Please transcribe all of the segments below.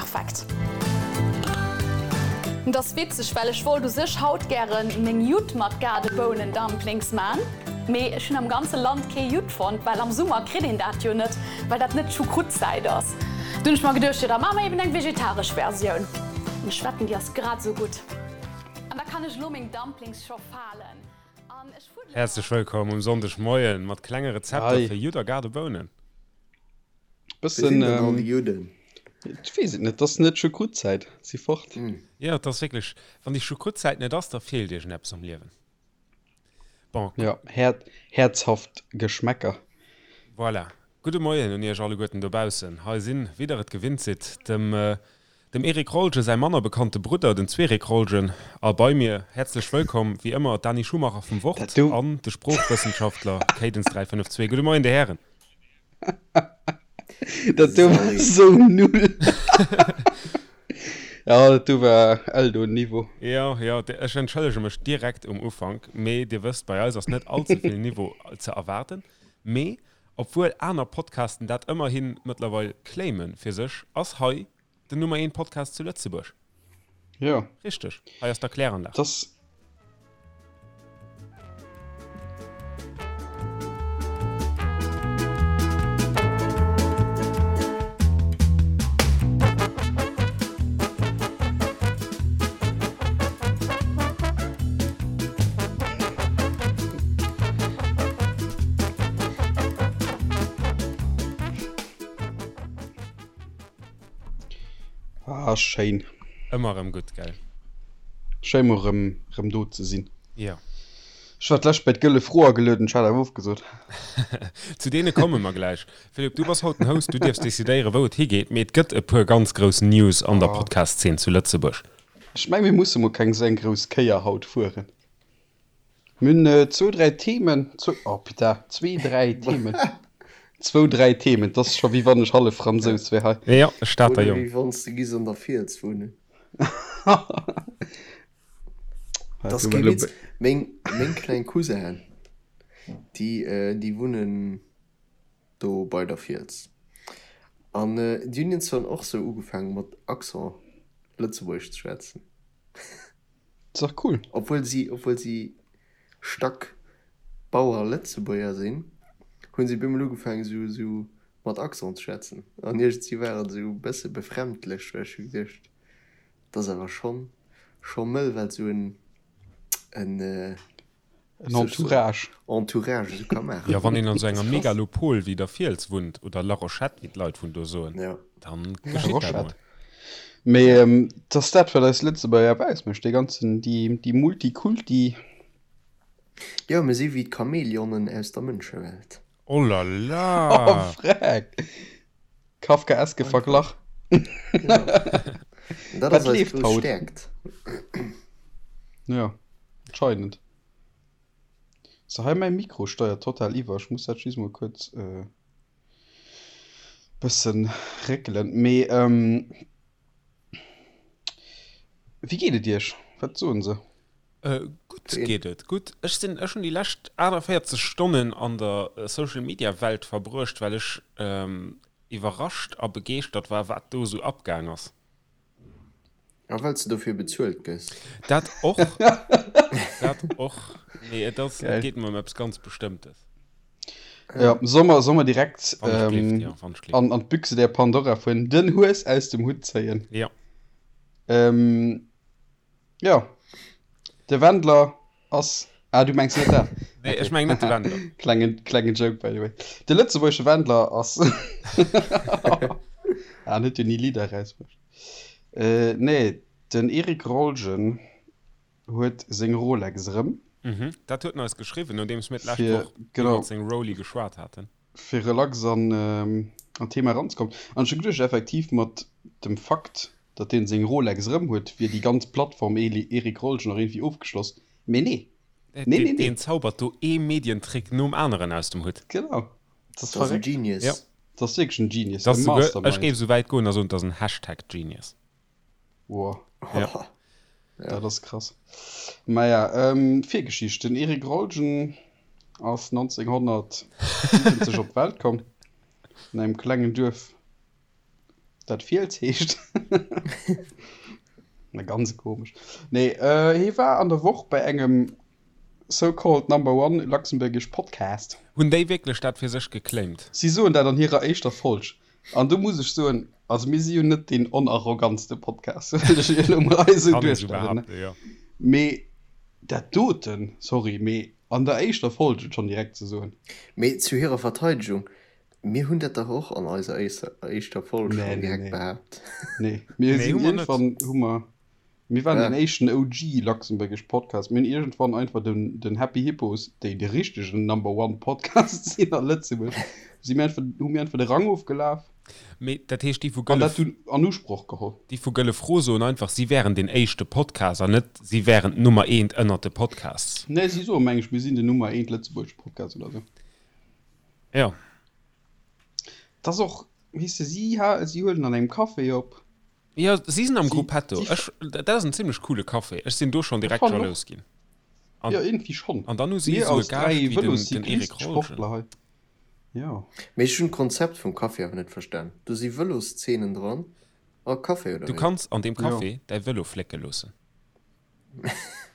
perfekt. Et ass witzeg, well ech wollt u sech haut gären meng Judd mat Gaardebounen-Dumplings man, mee ech hunn am ganze Land kee Judd fonnt, well am Summer kritt een dat jo net, well dat net Choucroute-Zäit ass. Du hunn ech mer geduecht, jo da maache mer eben eng vegetaresch Versioun. An ech wetten, déi ass grad esou gutt. An da kann ech elo meng Dumplings scho falen an ech fuddelen Häerzlech wëllkomm um Sonndegmoien mat klenge Rezepter fir Judd a Gaardebounen. Wéi sinn denn all déi Judden? Ech weess et net, et ass net Choucroute-Zäit, si fort. Jo, et ass wierklech, wann déi Choucroute-Zäit net ass, da feelt iergendeppes am Liewen. Bon. Jo, häerzhaft Geschmäcker. Voilà. Gudde Moien un iech alleguerten dobaussen. Hei sinn, wéi der et gewinnt sidd, dem dem Eric Rolgen säi manner bekannte Brudder, den Zwerik Rolgen, a bei mir, häerzlech wëllkomm, wéi ëmmer, d'Dani Schumacher vum Wort an de Sproochwëssenschaftler Cadence352. Gudde Moien, Dir Hären. Dat do war sou null. Ja, dat do war Eldo-Niveau. Jo, jo, ech entschëllege mech direkt um Ufank, mee Dir wësst, bei eis ass net all ze vill Niveau ze erwaarden. Mee obwuel aner Podcasten dat ëmmerhi mëttlerweil claime fir sech, ass hei Den Nummer 1 Podcast zu Lëtzebuerg. Jo. Richteg. Hei ass d'Erkläranlag. Das. Ah, schéin. Ëmmer erëm gutt, gell? Schéin mol rëm, rëm do ze sinn. Jo. Ech war d'lescht bei d'Gëlle Fro agelueden, ech hat awer ofgesot. Zu deene komme mer gläich. Philippe, du bass haut den Host, du dierfs decidéieren, wou et higeet. Mee et gëtt e puer ganz grouss News an der Podcast-Zeen zu Lëtzebuerg. Ech meng, mir musse mol keng sou eng grouss Kéier haut fueren. Mir hunn zwou, dräi Themen, zwou, oh putain, zwee, dräi Themen, zwou, dräi Themen, 't ass scho wéi wann ech hallef Fransous wär hei. Jo, e Stater Oder Jong. wéi wann s de giss an der Fiels wunnen. Dat ass kee Witz. Meng, meng kleng Cousinen, déi, déi wunnen do bei der Fiels. An déi hunn iergendwann och sou ugefaangen mat Accent Lëtzebuergesch ze schwätzen. Ass dach cool. Obwuel si, obwuel si stack Bauer Lëtzebuerger sinn, hunn si bemol ugefaangen esou, esou mat Accent ze schwätzen. An iergendwéi war et esou e bësse befremdlech, well ech hu geduecht, dat ass awer schonn, scho mëll, wat esou en, en, En Entourage. Entourage esou ka maachen. Jo, wann een an esou enger Megalopol wéi der Fiels wunnt, oder La Rochette, wéi d'Leit vun do soen, dann geschitt dat mol. Mee et ass dat, wat eis Lëtzebuerger awer ausmécht, dee ganzen, déi, déi Multikulti. Jo, mir si wéi d'Chamäleonen aus der Mënschewelt. Oh la la! Oh freck! Kafkaeske Verglach. Genau. Dat Wat ass eis leeft grouss haut? Stäerkt. Jo, anscheinend. So, hei mäi Mikro steiert total iwwer. Ech muss dat just mol kuerz e bëssen réckelen. Mee wéi geet et iech? Wat soen se? Gutt geet et, gutt. Ech sinn, ech hunn déi lescht 48 Stonnen an der Social Media Welt verbruecht, well ech iwwerrascht a begeeschtert war, wat do esou abgaang ass. A well s de dofir bezuelt gëss. Dat och, dat och. Nee, et ass, et geet mer ëm eppes ganz Bestëmmtes. Jo, solle mer, solle mer direkt Wann ech gleeft, jo, wann ech gleeft. an, an d'Büchse der Pandora fueren, den Hues aus dem Hutt zéien? Jo. Jo, de Wendler ass. Ah, du mengs net dat? Nee, ech meng net de Wendler. Klengen, klengen Joke, by the way. De lëtzebuergesche Wendler ass. Ah, en huet jo ni Lidder erausbruecht. Äh, nee, den Eric Rolgen huet seng Rolex erëm. Mhm, dat huet en eis geschriwwen, nodeems mir d'lescht Fir, Woch genau. iwwert seng Roly geschwat haten. Fir relax an an d'Thema eranzekommen. An ech hu geduecht, effektiv mat dem Fakt, datt deen seng Rolex erëm huet, wier déi ganz Plattform Eric Rolgen och iergendwéi ofgeschloss. Mee nee. Nee, nee, nee. Deen zaubert do ee Medientrick nom aneren aus dem Hutt. Genau. Dat ass Dat ass en verréckt. Genius. Jo. Dat ass wierklech en Genius, Dat e ass souguer, ech Mastermind. géif esou wäit goen a soen, dat ass en Hashtag Genius. Wow. Ja. Dat ass krass. Maja, ähm, Virgeschicht, Den Eric Rolgen ass 1970 op d'Welt komm, an engem klengen Duerf. Dat Fiels heescht. Na ganz komesch. Nee, äh, hie war an der Woch bei engem so-called number one luxembourgish podcast. Hunn déi wierklech dat fir sech geclaimt? Si soen dat an hirer éischter Folg. An do muss ech soen, also mir si jo net deen onarrogantste Podcast, wëll ech elo mol hei esou Kann ee sou duerstellen, ne? behaapten, jo. Mee dat doten, sorry, mee an der éischter Folg et schonn direkt ze soen. Mee zu hirer Verteidegung, Mir hunn dat dach och an eiser éischter Folg Nee, schonn nee, direkt nee. behaapt. Nee, mir Nee, sinn hu mer net. iergendwann hu mer, mir waren Ja. den éischten OG luxembourgish Podcast. Mir hunn iergendwann einfach den, den Happy Hippos, déi de richtegen Number One Podcast sinn a Lëtzebuerg, si mir einfach, hu mir einfach de Rang ofgelaf Mee dat heescht, déi vu an Gëlle, dat dunn an Usproch geholl. déi vu Gëlle Fro soen einfach, si wären den éischte Podcast an net, si wären d'Nummer eent ënnert de Podcasts. Nee, si soe meng ech, mir sinn den Nummer eent lëtzebuergesche Podcast oder sou. Jo. Dat ass och, weess de, si ha, si huelen an engem Café op. Jo, si sinn am Si, Gruppetto. si, Ech, dat ass en zimlech coole Café. Ech sinn do schonn ech direkt fannen och. jalous ginn. An, Jo, iergendwéi schonn. an dann hu si Mir esou e als Gaascht 3 wéi den, den Vëloscyclist, Eric Rolgen. Sportler hei. Jo. Mee ech hunn d'Konzept vum Café awer net verstan. Do si Vëloszenen dran a Café, oder Du wéi? kanns an deem Jo. Café däi Vëlo flécke loossen.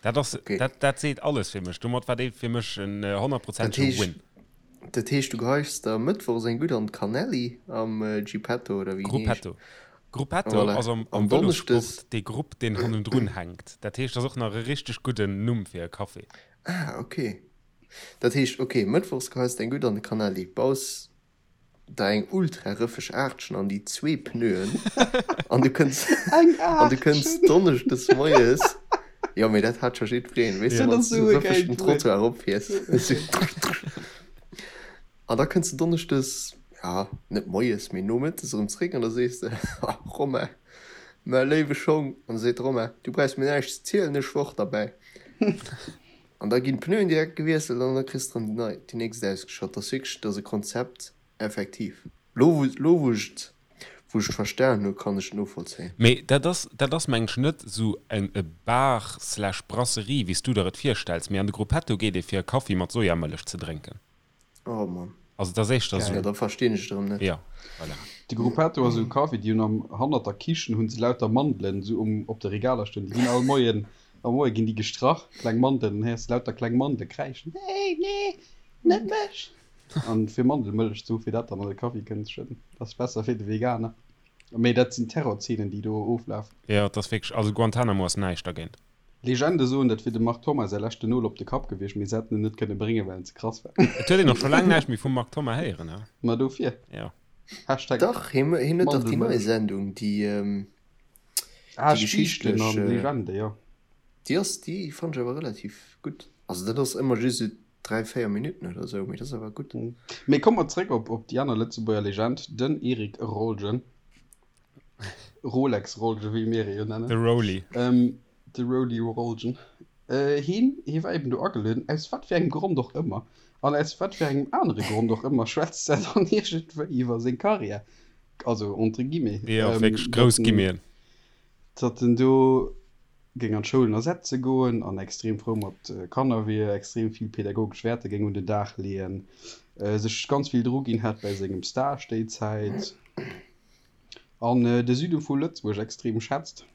Dat ass, Okay. dat, dat seet alles fir mech. Domat war dee fir mech en Dat honnertprozentege heescht, Win. dat heescht, du geheis der mëttwochs eng gutt an d'Cannelli am Gipetto oder wéi en heescht. Gruppetto. Gruppetto Voilà. ass am, An am donneschdes. Vëlossport dee Grupp, deen hannendrun hänkt. Dat heescht, dat ass och nach e richteg gudden Numm fir e Café. Ah, okay. Dat heescht, okay, mëttwochs geheis de eng gutt an de Cannelli, baus der eng ultra rëffeg Aartchen an déi zwee Pneuen an du kënns Eng an du kënns Aartchen! donneschdes moies, jo mee dat hat scho jiddwereen, weess de, Dat wann ass s du esou e rëffeg gäilt den Wuert. Trottoir eropfiers, esou an da kënns du donneschdes, ja net moies, mee nomëttes erëm zréck an da sees de, Ha Romain, mäi léiwe Schong, an da seet de Romain, du brauchs mir näischt ze zielen, ech war och derbäi. An da ginn d'Pneuen direkt gewiesselt an da kriss de erëm déi nei, déi nächst ausgeschott. Dat ass wierklech, dat ass e Konzept, effektiv. Lo wou, lo wou ech et, wou ech et verstan hu, kann ech et novollzéien. Mee dat ass, dat ass meng ech net esou eng e Bar slash Brasserie wéi s du der et virstells, mee an de Gruppetto geet ee fir e Kaffi mat Sojamëllech ze drénken. Oh Mann. Also et ass éischter Geil. Jo, esou. da verstinn ech et erëm net. Jo, voilà. De Gruppetto ass esou e Café, déi hunn am, hannert der Kichen hunn se lauter Mandelen esou um, op de Regaler stoen. Déi ginn all Moien, am Moie ginn déi gestrach, kleng Mandelen, dann héiers de lauter kleng Mandele kräischen, Nee, nee, net mech! An fir Mandelmëllech ze hu fir dat dann an de Kaffi kënnen ze schëdden. Dat ass besser fir de Veganer. Mee dat sinn Terrorzeenen, déi do oflafen. Jo, et ass wierklech, also Guantanamo ass näischt dergéint. Legende soen, dat wier dem Marc Thoma säi leschten Nol op de Kapp gewiescht, mee se hätten en net kënne bréngen, well en ze krass war. Et huet een och scho laang näischt méi vum Marc Thoma héieren, he? Ma dofir. Jo. Hashtag Dach, hien hien huet dach déi nei Mandelmëllech. Sendung, déi, Ah, déi Spiichten geschichtlech, an Legende, jo. déi ass, déi fannt ech awer relativ gutt. Also dat ass ëmmer just esou 3, 4 Minutten oder esou, mee dat ass awer gutt. Mee komme mer zréck op op déi aner Lëtzebuerger Legend, den Eric Rolgen. Rolex Rolgen, wéi mir e jo nennen. De Roly. Ähm, de Roly Rolgen. Äh, hien, hie war eben do agelueden, aus wat fir engem Grond och ëmmer, an aus wat fir engem anere Grond och ëmmer schwätzt er dann iergendwéi iwwer seng Karriär, also entre guillemets, Jo, ähm, wierklech datt grouss en, Guillemeten. datt en do géing an d'Schoulen ersetze goen an extrem frou mat Kanner wier, extrem vill pädagogesch Wäerter géing un den Dag leeën, sech ganz vill druginn hätt bäi sengem Stage déi Zäit. An de Süde vu Lëtzebuerg extrem schätzt.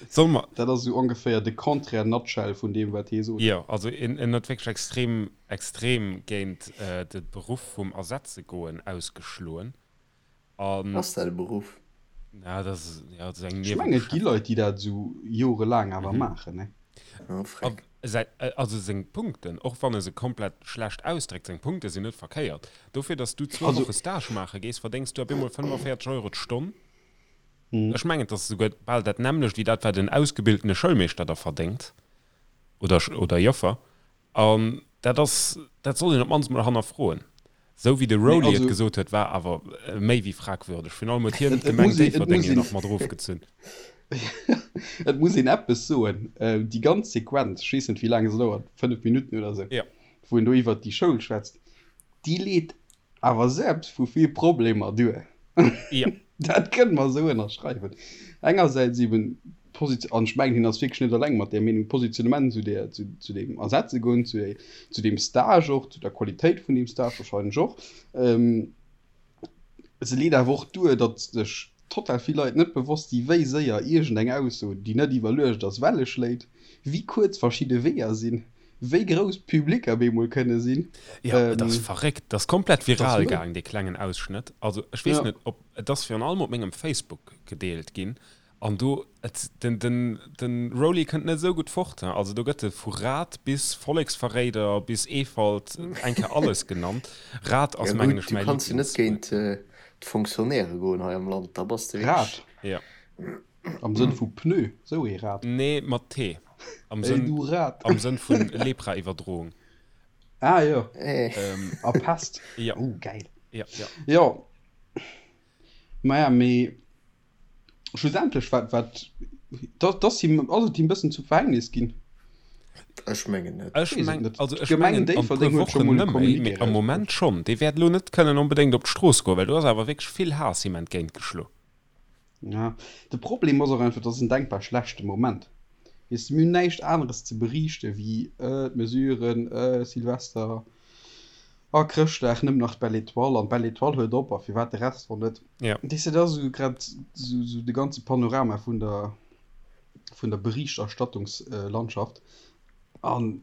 Soll mer. Dat ass esou ongeféier de Contraire nutshell vun deem, wat hie sot. Jo, also en en huet wierklech extrem, extrem géint de Beruff vum Ersetzegoen ausgeschloen. An. Ass dat e Beruff? Na, dat ass, jo, dat ass eng Ech mengen, et gi Niewebeschäftegung. Leit, déi dat esou jorelaang awer maachen, ne? Oh, freck. Säi, also seng Punkten, och wann e se komplett schlecht ausdréckt, seng Punkte sinn net verkéiert. Dofir, datt s du zwou Also. Woche Stage maache gees, verdéngs du op eemol 45 Euro d'Stonn. Ech mengen, et ass esouguer bal dat nämmlecht wéi dat, wat en ausgebildene Schoulmeeschter da verdéngt oder, oder Joffer. An dat ass, dat sollt een op d'mannst mol hannerfroen. Sou wéi de Nee, Rowley et also. gesot huet, war awer méi wéi fragwürdeg. Virun allem huet hien Et, et d'Gemeng muss een, et Déifferdeng muss jo een, nach mat erofgezunn. et muss een eppes soen, déi ganz Sequenz, ech weess net wéi laang se dauert, 5 Minutten oder sou, Ja. wou en do iwwert déi Schoul schwätzt, déi leet awer selbst vu vill Problemer duer. Ja. Dat kënne mer esou ënnerschreiwen. Engersäits eben d'Position, an ech mengen, hien ass wierklech net eleng mat där Meenung, d'Positionnement zu där, zu, zu deem Ersetzegoen, zu, zu deem Stage och, zu der Qualitéit vun deem Stage wahrscheinlech och. Se leet awer och duer, datt sech total vill Leit net bewosst si wéi séier iergendeng Ausso, déi net iwwerluecht ass, Welle schléit, wéi kuerz verschidde Weeër sinn, wéi grouss Publicker bemol kënne sinn. Jo, et ass verréckt. Et ass komplett viral gaang, dee klengen Ausschnëtt. Also ech weess net, ob, et ass virun allem op mengem Facebook gedeelt ginn. An do, et, den, den, den Rolly kënnt net esou gutt fort, he. Also do gëtt e vu Rat bis Volleksverréider bis Eefalt eng Kéier alles genannt. Rat ass Ja mengen gutt, ech du mäi kanns jo net Lieblingswuert. géint d'Fonctionnairë goen hei am Land, da bass de wierklech. Rad? Ja. Am Sënn vu Pneu, sou ee Rad. Nee, mat T. Am Ey Sënn, du Rat. am Sënn vun Lepra-Iwwerdroung. Ah jo. Eh. A Pest. Ja. Oh, gäil. Ja, ja. Jo. Maja, mee Schlussendlech wat wat dat ass him ass et him bëssen zum Verhängnis ginn. Ech mengen net. Ech Weess et meng, net. also ech D'Gemeng mengen an e puer Déifferdeng huet scho Wochen mol e nëmme, Communiqué mee am erausbruecht. Moment schonn. Dee wäert elo net kënnen onbedéngt op d'Strooss goen, well do ass awer wierklech vill Haass him entgéintgeschlo. Ja, de Problem ass och einfach, et ass en denkbar schlechte Moment. Weess de, mir hunn näischt aneres ze beriichte wéi d'Mesuren, Silvester a Chrëschtdag, nëmmen nach d'Belle Étoile an d'Belle Étoile huet op a firwat de Rest och net. Ja. Weess de, dat ass esou grad esou de ganze Panorama vun der, vun der Berichterstattungslandschaft an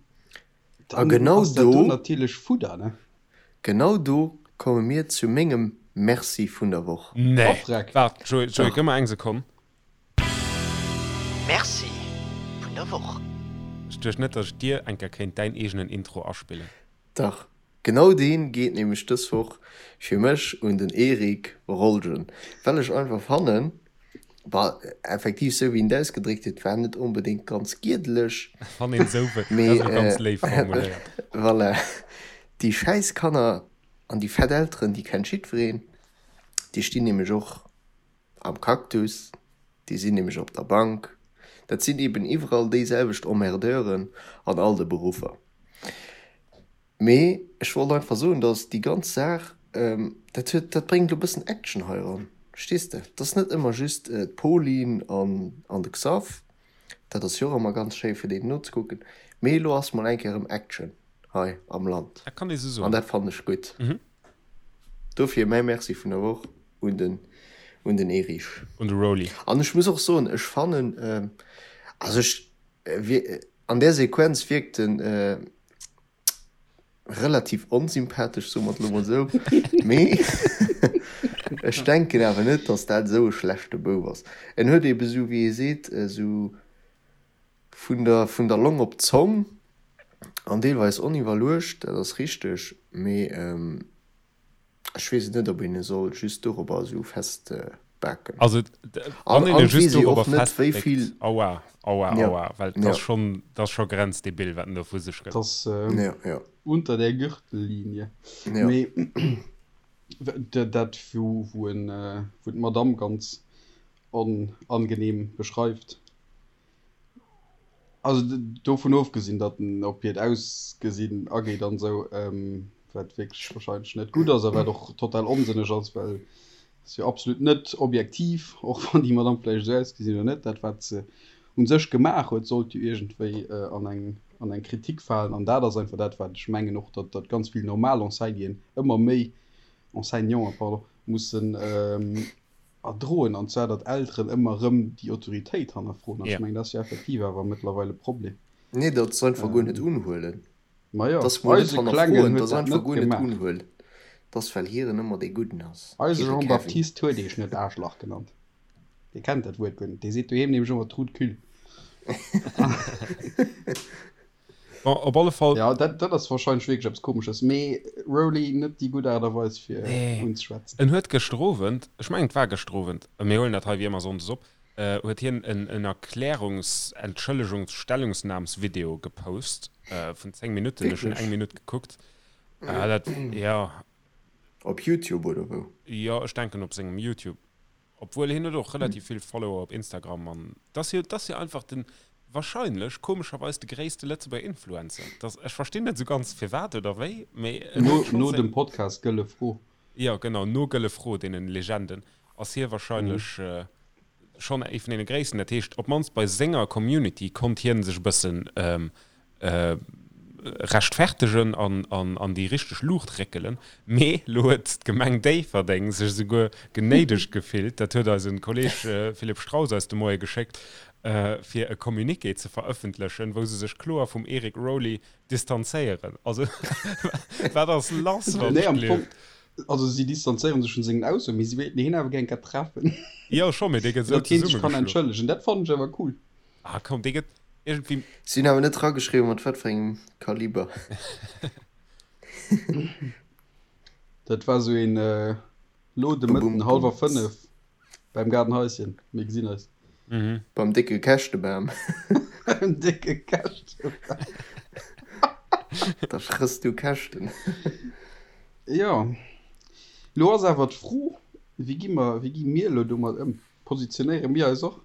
A dann genau ass dat do do, natierlech Fudder, ne? genau do komme mir zu mengem Merci vun der Woch. Nee, Oh Freck. waart, Joé, Joé, Dach. gëmm mer eng Sekonn. Merci vun der Woch. Ech duecht net, datt ech dir eng Kéier kéint däin eegenen Intro aspillen. Dach, genau deen geet nämlech dës Woch fir mech un den Eric Rolgen, well ech einfach fannen, bah, effektiv sou wéi en et ausgedréckt huet, war net onbedéngt ganz giedeleg, Wann een esou wëll, dat mee ass elo ganz léif formuléiert. voilà, déi schäiss Kanner an déi fett Elteren, déi kennt jiddwereen, déi stinn nämlech och Am Cactus, déi sinn nämlech op der Bank. Dat sinn eben iwwerall déiselwecht Emmerdeuren an all de Beruffer. Mee ech wollt einfach soen, datt déi ganz Saach, dat huet, dat bréngt elo e bëssen Action hei eran, verstees de? Et ass net ëmmer just d'Pauline an an de Xav, dat ass jo och ëmmer ganz schéi fir deenen nozekucken, mee elo ass mol eng Kéier erëm Action hei am Land Dat kann ee sou an soen. dat fannen ech gutt. Dofir mäi Merci vun der Woch un den un den Erich. Un de Rolly. An ech muss och soen, ech fannen, also ech an där Sequenz wierkt en relativ onsympathesch, soe mer et elo mol esou, mee ech denken awer net, datt dat esou e schlechte Bouf ass. En huet eebe esou, wéi ee seet, esou vun der vun der Long op d'Zong an deelweis oniwwerluecht, dat ass richteg, mee Ech weess et net, ob een e soll just dorobber esou festbaken. Also, An wann een e an just weess ee dorobber och net, wéi festbéckt, vill. aua, aua, Ja, aua, well 't ja. ass schonn, 't ass scho grenzdebil, wat en do vu sech gëtt. 't ass Ja, ja. unter der Gürtellinie. Ja. Mee dat, wou, wou en, wou d'Madame ganz onangenehm beschreift, Also dovun ofgesinn, datt en op hiert Ausgesinn ageet an esou, wat wierklech wahrscheinlech net gutt ass a wat och total onsënneg ass, well et ass jo absolut net objektiv, och wann déi Madame vläicht esou ausgesinn oder net, dat wat se u sech gemaach huet, sollt jo iergendwéi an eng an eng Kritik falen. An dat ass einfach dat, wat ech mengen och, datt datt ganz vill normal Enseignien ëmmer méi, Enseignanten, pardon, mussen erdroen, an zwar datt Elteren ëmmer erëm déi Autoritéit hannerfroen. An ech mengen, dat ass jo effektiv awer mëttlerweil e Problem. Nee, datt se einfach guer net unhuelen. Majo, Datt se mol net eise Klengen hannerfroen, huet datt se dat einfach net guer net gemaach. unhuelen. Datt well hiren ëmmer dee Gudden ass, Eise hire Kevin. Jean-Baptiste huet eech net Aarschlach genannt. Dee kennt dat Wuert guer net. Dee seet doheem nämlech ëmmer Trou de cul. Bon, op alle Fall. Ja, dat, dat ass wahrscheinlech wierklech eppes Komesches, mee Rolly, net déi gutt Aart a Weis fir Nee. unzeschwätzen. En huet gëschter Owend, ech mengen et war gëschter Owend, mir huelen dat hei wéi ëmmer sonndes op, huet hien en en Erklärungs-, Entschëllegungs-, Stellungsnahmsvideo gepost vun 10 Minutten. Ech hunn Wierklech? eng Minutt gekuckt. Dat, ja. Op Youtube oder wou? Jo, ech denken op sengem Youtube. Obwuel hien huet och relativ vill Follower op Instagram an dat ass jo, dat ass jo einfach den, wahrscheinlech, komescherweis de gréisste Lëtzebuerger Influencer. Dat, ech verstinn net esou ganz firwat oder wéi, mee en No, huet schonn no seng. dem Podcast Gëlle Fro. Jo genau, no Gëlle Fro, deenen Legenden, ass hie wahrscheinlech schonn ee vun deene gréissten. Dat heescht, op d'mannst bei senger Community konnt hien sech e bëssen. rechtfertegen an an an déi richteg Luucht réckelen. Mee lo huet d'Gemeng Déifferdeng sech esouguer genéidegt gefillt, dat huet eise Kolleeg Philippe Straus eis de Moie geschéckt, fir e Communiqué ze verëffentlechen, wou se sech kloer vum Eric Rowley distanzéieren. Also wat ass lass, wann ech gleeft? Also si distanzéiere sech vun sengen Aussoen, mee si wéilten hien awer gär eng Kéier treffen. Jo scho, mee dee gëtt esou Datt hien sech kann zesummegeschloen. entschëllegen, dat fannen ech awer cool. Ah komm, dee gëtt iergendwéi. Si hunn awer net drageschriwwen, mat wat fir engem Kaliber. Dat war esou een lo de Mëtten hallwer 5 beim Gaardenhaischen. Mir gesinn eis. Beim décke Käschtebam. Beim décke Käschtebam. Da frëss du Käschten. Jo. Lo ass awer d'Fro, wéi gi mer, wéi gi mir elo domat ëm? Positionéiere mir eis och?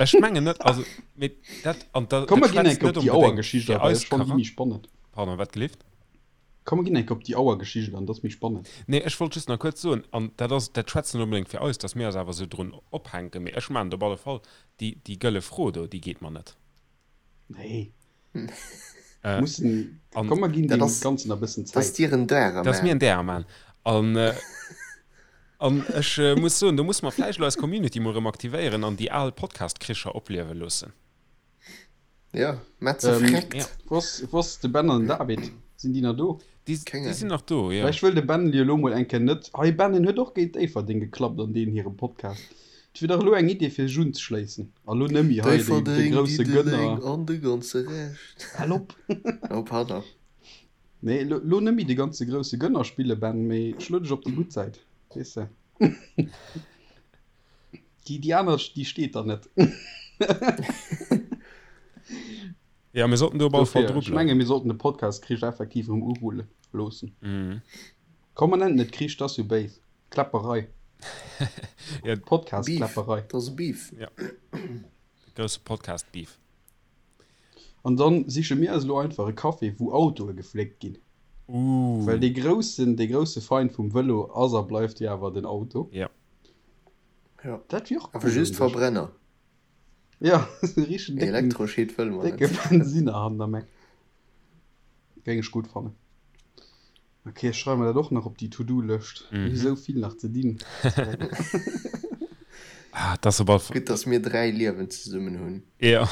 Ech mengen net, also mee dat an da Komm dat mer ginn schwätzt enk op net déi onbedéngt Auergeschicht fir a, well eis ech fannen déi Charak méi spannend. Pardon, wat gelift? Komm mer ginn enk op déi Auergeschicht an, dat ass méi spannend. Nee, ech wollt just nach kuerz soen, an dat ass, dat schwätzt net onbedéngt fir eis, datt mir eis awer esou drun ophänken, mee ech maachen et op alle Fall, déi, déi gëlle Fro do, déi geet mer net. Nee. Äh, Mussen, an komm mer ginn Dat deem ass, Ganzen nach e bëssen dat ass Zäit. dir en Därer dat ass mir man. en Därer man. An, an ech muss soen, do musse mer vläicht elo eis Community mol erëm aktivéieren an déi al Podcast-Kricher opliewe loossen. Ja, Metze Ähm, freckt. Ja. Wou ass, wou ass de Ben an den David? Sinn déi nach do? Déi, Keng déi sinn Ahnung. nach do, jo. Vläicht wëll de Ben jo elo mol eng Kéier net. Hei Ben, en huet och géint Déifferdeng geklappt an deenen hirem Podcast. Et wier dach elo eng Idee fir sech unzeschléissen. A lo nëmmi hei de, de Déifferdeng, grousse Diddeleng Gënner. an de ganze Rescht. Hal op! Oh, pardon. Nee, lo, lo nëmmi de ganze grousse Gënner spille, Ben, mee schlo dech op déi gutt Säit, weess de. Déi, déi aner, déi steet der net. Ja, mir sollten do op alle Fall Dofir, dru ech bleiwen. menge mir sollten de Podcast-Krich effektiv erëm urulle loossen. Mhm. Komm, mer nennen et net Krich, dat ass jo béis. Kläpperei. Ja, Beef. Podcast-Kläpperei. Dat ass e Beef. ja. De grousse Podcast-Beef. An dann siche mir eis elo einfach e Café, wou Autoe gefléckt ginn. Uh. Well dee groussen, dee grousse Feind vum Vëlo ass a bleift jo awer den Auto. Ja. Ja. Dat wier och Awer cool just un sech. Verbrenner. Ja, esou richteg décken, Elektroscheed wëlle mer décke net. Bensinner han der Meck. Géing ech gutt fannen. Ok, ech schreiwe mer dat och nach op déi To-Do-Lëscht. Mir hu Mhm. sou vill nach ze dinn. Ah, dat ass op alle Fall. Gutt, dass mir 3 Liewen zesummen hunn. Ja.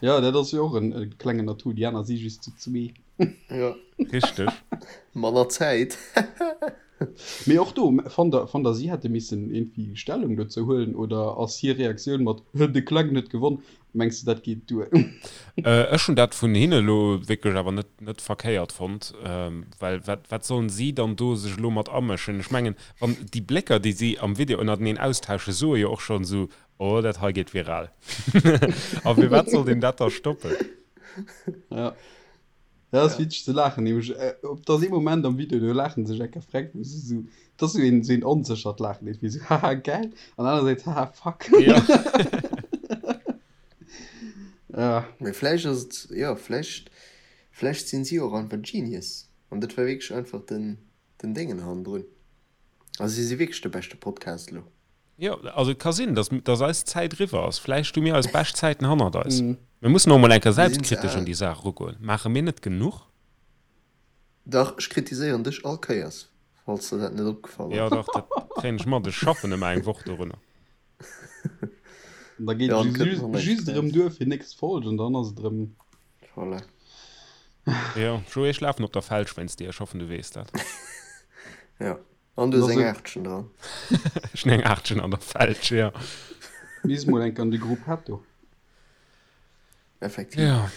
Ja, dat ass jo och en e klengen Atout. Déi aner si just zu zwee. Ja. Richteg. Manner Zäit. Mee och do, fannt der, fannt der si hätte missen iergendwéi Stellung dozou huelen oder ass hir Reaktioun mat de Klengen huet gewonn, mengs de dat geet duer? Ech hunn dat vun hinne elo wierklech awer net, net verkéiert fonnt, well wat, wat sollen si dann do sech elo mat amëschen? Ech mengen, wann déi Blécker, déi si am Video ënnerteneen austauschen, soe jo och schonn esou, oh dat hei geet viral. A firwat sollt een dat da stoppen? Ja. Dat ass witzeg ze laachen, nämlech op dass ee Moment am Video, do laachen se sech enker freck, wou se sou, dat ass sou een, sou een onséchert Laachen, iergendwéi sou haha geil an anersäits haha fuck. Ja. Ja. Mee vläicht ass et, jo, vläicht, vläicht sinn si och einfach Genius an dat war wierklech einfach den, den Déngen hannendrun. Also si si wierklech de beschte Podcast elo. Jo, also et ka sinn, dass, dass eis Zäit eriwwer ass. Vläicht hu mir eis bescht Zäiten hannert eis. Mir mussen och emol eng Kéier Mir sinn ze selbstkritesch al. un déi Saach erugoen. Maache mir net genuch? Dach, ech kritiséieren dech all Kéiers, falls der dat net opgefall Jo, ass. dach, dat kréien ech mat. Ech schaffen ëmmer eng Woch dorunner. An da geet Jo, et an kënnt just, nach näischt just erëm eraus. duer fir nächst Folg an dann ass et erëm. Voilà. Jo, Joé, ech lafen op der Felsch wéinst dir. Ech hoffen, du weess dat. Jo. An du hues eng Also- Aachtchen dran. Ech hunn eng Aachtchen an der Felsch, jo. Misst mol enk an de Gruppetto. Effektiv. Ja.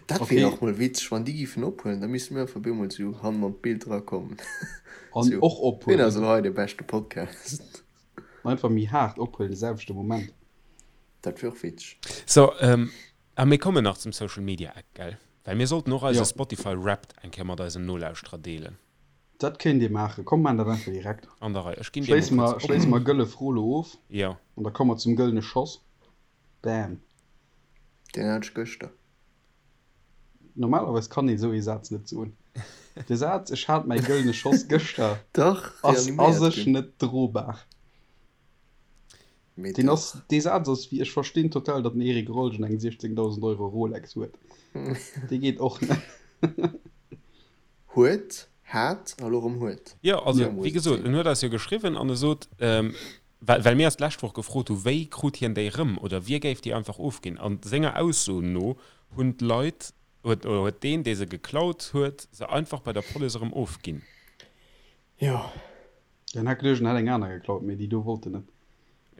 Dat Okay. wier och mol witzeg, wann déi giffen ophuelen, da misste mir einfach op eemol sou hannen an d'Bild erakommen. An Sou, och Wien ass ophuelen. elo hei de beschte Podcast? Einfach méi haart ophuelen, de selwechte Moment. Dat wier och witzeg. So, ähm, a mir kommen nach zum Social Media Eck, gell? Well mir sollten och eise Jo. Spotify Wrapped eng Kéier mat eisen Nolauschterer deelen. Dat kéint ee maachen. Komm, maan dat einfach direkt. An der Rei. Ech ginn dir Schléisse mol mer, kuerz op. schléisse mer gëlle Fro lo of. Jo. An da komme mer zum gëllene Schoss. Bam. Deen hat ech gëschter. Normalerweis kann een esou ee Saz net soen. De Saz Ech hat mäi gëllene Schoss gëschter Dach, ass a reaniméiert sech ginn. net drobar. Mee Deen ass, dach. dee Saz ass wéi, ech verstinn total, datt den Eric Rolgen eng 16.000 Euro Rolex huet. Dee geet och net. Huet, hat a lo rëm huet. Jo, also Sou muss wéi et gesot, sinn. en huet eis jo geschriwwen an e sot, well, well mir eis d'lescht Woch gefrot hu wéi krut hien déi rëm oder wie géif déi einfach ofginn. An senger Ausso no hunn d'Leit, huet, oder huet deen, dee se geklaut huet, se einfach bei der Police erëm ofginn. Jo. Den hat geduecht, en hätt eng aner geklaut, mee déi do wollt en net.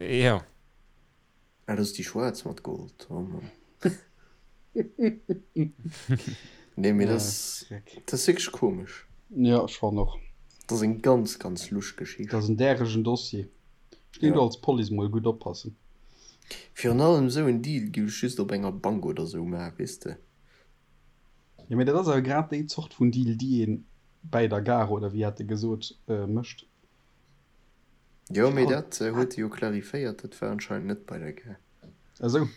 Jo. Ah, dat ass déi schwaarz mat Gold. Oh Mann. Nee, mee dat ass, dat ass wierklech komesch. Jo, ech fannen och. Dat ass eng ganz, ganz lusch Geschicht. Dat ass en däregen Dossier. Ech géing do als Police mol gutt oppassen. Virun allem esou en Deal giff ech just op enger Bank oder esou maachen, weess de. Jo, mee dat ass awer grad déi Zort vun Deal, déi een bäi der Gare, oder wéi hat e gesot, mécht. Jo, mee dat huet e jo clariféiert, dat war anscheinend net bei der Gare. Ah sou.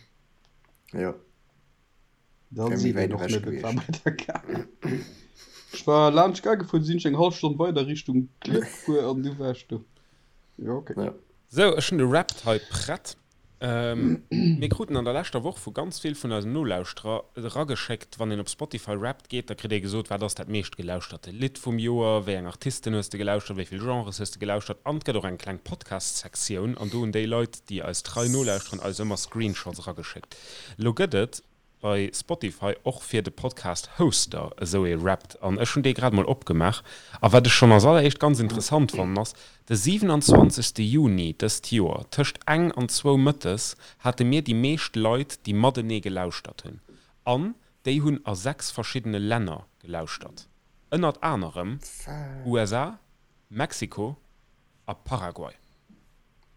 Jo. Da Wär méi seet wäit een och ewech net, et war gewiescht. bei der Gare. Ech war laanscht d'Gare gefuer, du sinn ech eng hallef Stonn weider Richtung Klierf gefuer an du war ech do. Jo, okay. Ja. Sou, ech hunn de Wrapped hei prett. Mir kruten an der leschter Woch vu ganz vill vun eisen Nolauschterer erageschéckt, wann een op Spotify Wrapped geet, da kritt ee gesot, wat ass dat meescht gelauschterte Lidd vum Joer, wéi eng Artisten hues de gelauschtert, wéi vill Genres hues de gelauschtert an et gëtt och eng kleng Podcast-Sektioun an do hunn déi Leit, déi eis trei nolauschteren, eis ëmmer Screenshots erageschéckt. Elo gëtt et bei Spotify och fir de Podcast Hoster esou ee Wrapped an ech hunn dee grad mol opgemaach a wat ech schonn als alleréischt ganz interessant fannen ass, de 27 Juni dëst Joer tëscht eng an zwou mëttes hate mir déi meescht Leit déi matenee gelauschtert hunn an déi hunn a 6 verschiddene Länner gelauschtert, ënnert anerem USA, Mexiko a Paraguay.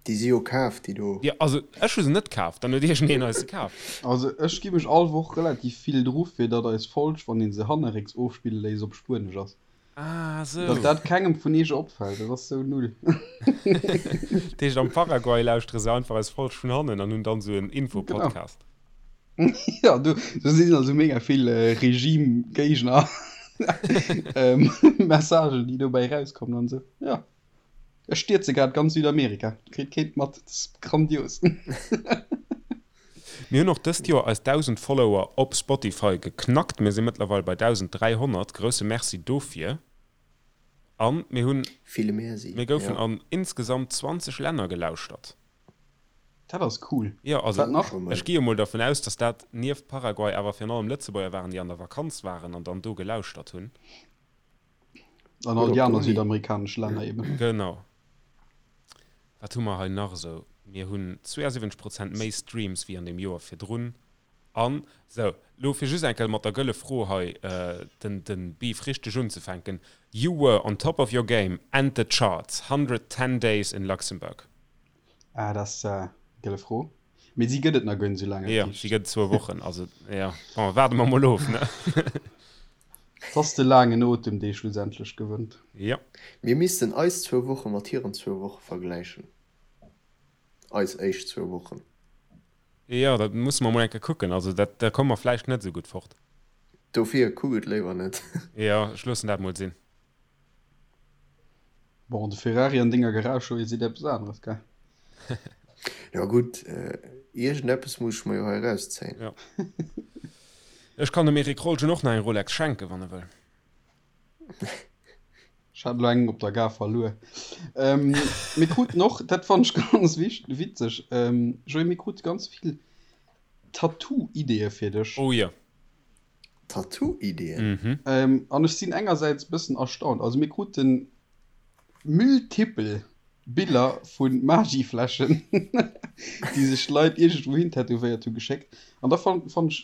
Déi si jo kaf, déi do. Jo, also ech hu se net kaf, dann huet iergendeen eis se kaf. Also ech gi mech all Woch relativ vill dru fir datt eis Folg, wann een se hannerrécks ofspille léisst, op Spuenesch ass. Ah sou. Datt dat kengem vun iech opfält, dat ass sou null. Dat heescht am Paraguay lauschtere se einfach eis Folg vun hannen an hunn dann sou en Genau. Info-Podcast. Jo, do sinn also mega vill Regime-Géigner Messagen, déi dobäi erauskommen an sou. Jo. Ech stierze grad ganz Südamerika. Kritt keen mat. Dat ass grandios. Mir hunn och dëst Joer eis 1.000 Follower op Spotify geknackt. Mir si mëttlerweil bei 1.300. Grousse Merci dofir. A mir hunn. Ville Merci, Mir goufen jo. an insgesamt 20 Länner gelauschtert. Dat ass cool. Jo, also Wat nach? ech gi jo mol dervun aus, dass dat nieft Paraguay awer virun allem Lëtzebuerger waren, déi an der Vakanz waren an dann do gelauschtert hunn. An all déi aner südamerikanesch Länner eben. Genau. Wat hu mer hei nach esou? Mir hunn 72 Prozent méi Streams wéi an deem Joer virdrun. An, sou, lo fir just eng Kéier mat der gëlle Fro hei den, den Beef richteg unzefänken, You were on top of your game and the charts, 110 days in Luxembourg. Ah, dat ass gëlle Fro. Mee si gëtt et nach guer net esou laang, Jo, si gëtt et zwou Wochen. Also, jo, bon, waarde mer mol of, ne? Et ass de laangen Otem, dee schlussendlech gewënnt. Jo. Mir missten eis zwou Woche mat hiren zwou Woche vergläichen. Eis éischt zwou Wochen. Jo, dat musse mer mol eng Kéier kucken. Also dat, da komme mer vläicht net esou gutt fort. Dofir, kuck et léiwer net. Jo, ech loossen dat mol sinn. Bon, de Ferrari an denger Garage, jo, seet eppes aneres, gell? Jo gutt, iergendeppes muss ech mer jo hei erauszéien. Jo. Ech kann dem Eric Rolgen och nach eng Rolex schenken, wann e wëll. Ech hat elo eng op der Gare verluer. Mir kruten och, dat fannen ech ganz witzeg, Joé, mir krute ganz vill Tattoo-Ideeë fir dech. Oh jo. Tattoo-Ideeën? An ech sinn engersäits e bëssen erstaunt. Also mir krute multipel Biller vu Maggi-Fläschen, déi sech d'Leit iergendwou hin tätowéiert hu geschéckt. An da fannt ech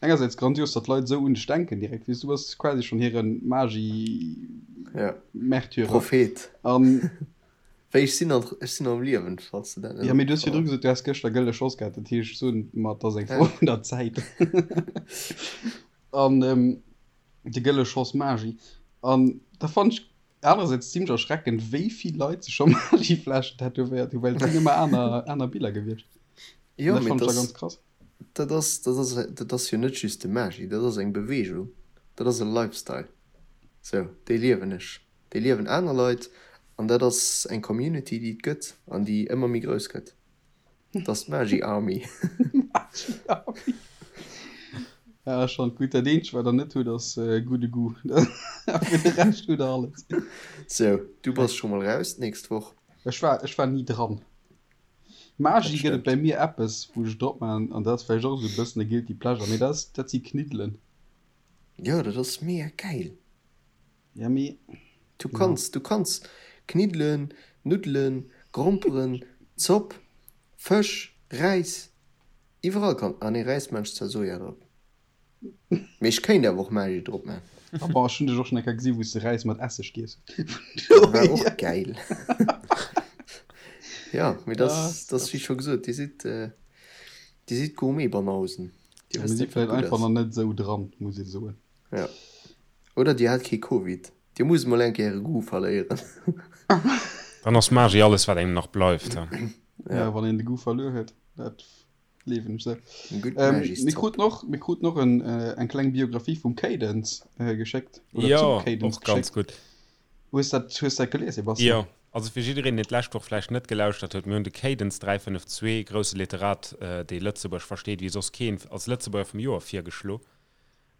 engersäits grandios, datt d'Leit esou un dech denken direkt, weess du, du bass quasi schonn hire Maggi-Märtyrer. Prophet. An Wéi, ech sinn nach, ech sinn am Liewen, falls de dat net Ja, mee du hues virdru gesot, du häss gëschter gëlle Schoss gehat, dat heescht, ech soen mer, et ass eng Fro vun der Zäit. An de gëlle Schoss Magi. An da fannen ech anerersäits zimlech erschreckend, wéi vill Leit sech scho Magifläschen tätowéiert hunn, well et sinn ëmmer aner, aner Biller gewiescht. Jo, An dat mee fannen ech da dat ganz krass. Dat ass, dat ass, dat ass jo net just de Magi, dat ass eng Beweegung, dat ass e Lifestyle. Sou, dee liewen ech. Déi liewen aner Leit an dat ass eng Community, déi et gëtt an déi ëmmer méi grouss gëtt. Dat ass d'Magi Army. Magi Army. Ja, schon gutt. Dat eenzegt, wat der net hutt, ass gudde Goût. Fir de Rescht hutt der alles. Sou, du bass scho mol raus d'nächst Woch. Ech war, ech war ni dran. Magi gëtt et bäi mir eppes, wou ech drop maachen, an dat ass vläicht och esou e bëssen e Guilty Pleasure, mee dat ass, dat si Kniddelen. Jo, dat ass mega gäil. Ja, mee. Du kanns, du kanns Kniddelen, Nuddelen, Gromperen, Zopp, Fësch, Räis, iwwerall kann, ah nee Räis maan ech zwar Soja drop, mee ech kéint awer och Magi drop maan. Ah bon, ech hunn dech och schon eng Kéier gesi wou s de Räis mat Esseg giess hues. Dat war och gäil. Jo, mee dat ass, dat ass wéi scho gesot, dir sidd, dir sidd Gourmet-Banausen, dir wësst net wat gutt ass. Mir si vläicht einfach nach net esou dran, muss ee soen. Jo. Oder dir hat kee Covid. Dir musst mol eng Kéier äre Goût verléieren. Dann ass Magi alles wat engem nach bleift. Ja, wann een de Goût verluer huet, dat gleewen ech sou. Mir kruten och, mir kruten och en, eng kleng Biographie vum Cadence geschéckt. Oder jo, zum Cadence och ganz gutt. Hues dat, hues dat gelies, Sebastian? Jo, also fir jiddereen, deen d'lescht Woch vläicht net gelauschtert huet, mir hunn de Cadence 352, grousse Literat, dee Lëtzebuerg versteet wéi soss keen, als Lëtzebuerger vum Joer virgeschlo.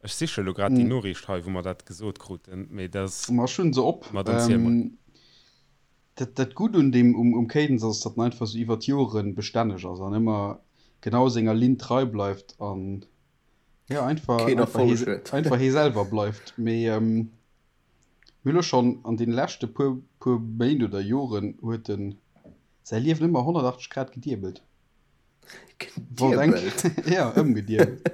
Ech siche lo grad déi Noriicht hei, wou mer dat gesot kruten, mee dat ass. Ma ech hunn se op. Ma dann ziel mol. Dat, dat Gutt un deem, um, um Cadence ass, datt en einfach esou iwwer d'Jore bestänneg ass an ëmmer genau senger Linn trei bleift an, jo, einfach, Keen einfach Erfolleg hie, huet. einfach hie selwer bleift. Mee mir hu lo schonn an deene leschte puer, puer Méint oder Joren huet en säi Liewen ëmmer 180 Grad gediebelt. Wollt eng Gediebelt? Ja, ëmgediebelt.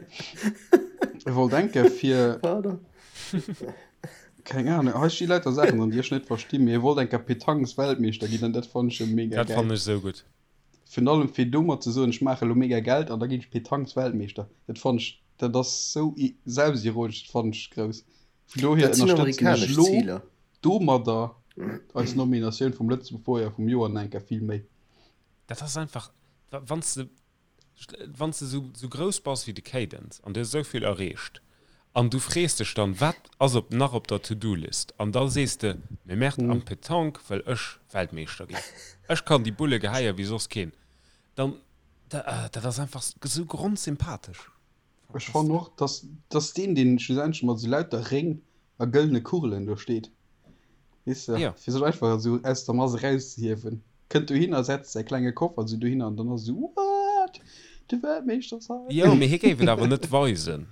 E wollt enke fir. Pardon. Keng Ahnung, hei sti lauter Saachen dran, déi ech net verstinn, mee e wollt enker Petanques-Weltmeeschter ginn an dat fannen ech jo mega Dat gäil. fannen ech esou gutt. Virun allem fir domat ze soen, ech maache lo mega Geld an da ginn ech Petanques-Weltmeeschter, dat fannen ech, dat ass sou selbstironesch, dat fannen ech grouss. Vun dohier Dat sinn ënnerstëtzen ech amerikanesch lo Ziler. domadder eis Nominatioun vum Lëtzebuerger vum Joer nach enker vill méi. Dat ass einfach, wann s de, wann s de sou, sou grouss bass wéi de Cadence an du hues esou vill erreecht an du frees dech dann, wat ass op, nach op der To-Do-List? An da sees de, mee merde, am Petanque wëll ech Weltmeeschter ginn, ech kann déi Bulle geheie wéi soss keen. Dann, dat ass einfach sou grondsympathesch. Ech fannen och, dass, dass deen, deen schlussendlech mat esou lauter Réng a gëllene Kugelen do steet, weess de, Ja. fir sech einfach esou aus der Mass erauszehiewen, kënnt dohinner, setzt säi klenge Koffer esou dohinner an dann ass esou, What? De Weltmeeschter ass hei! Jo, mee hie géif et awer net weisen.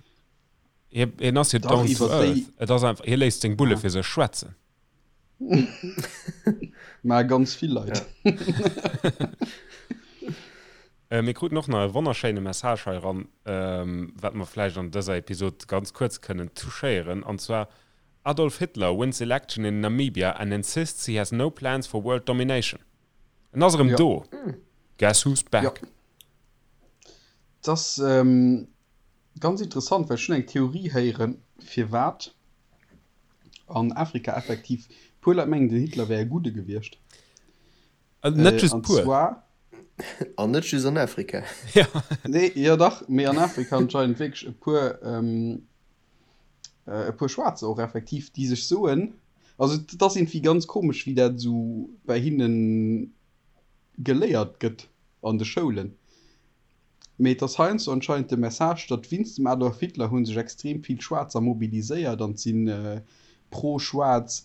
Hie, hien ass jo Dach, down to iwwer déi. earth. Et ass einfach, hie léisst seng Bulle Ah. fir sech schwätzen. Mä ganz vill Leit. Ja. Mir kruten och nach e wonnerschéine Message hei eran, wat mer vläicht an dëser Episod ganz kuerz kënnen touchéieren, an zwar, Adolf Hitler wins election in Namibia and insists he has no plans for world domination. En ass erëm Jo. do! Guess who's back? Jo. Et ass ganz interessant, well ech hunn eng Theorie héieren, firwat an Afrika effektiv puer Leit mengen, den Hitler wär e Gudde gewiescht. Net just An puer. zwar. An net just an Afrika. Ja. Nee, jo dach, mee an Afrika anscheinend wierklech e puer, e puer Schwaarzer och effektiv, déi sech soen, also et ass iergendwéi ganz komesch, wéi dat esou bei hinne geléiert gëtt an de Schoulen. Mee et ass heiansdo anscheinend de Message, datt wéinst dem Adolf Hitler hu sech extrem vill Schwaarzer mobiliséiert an et si pro-schwaarz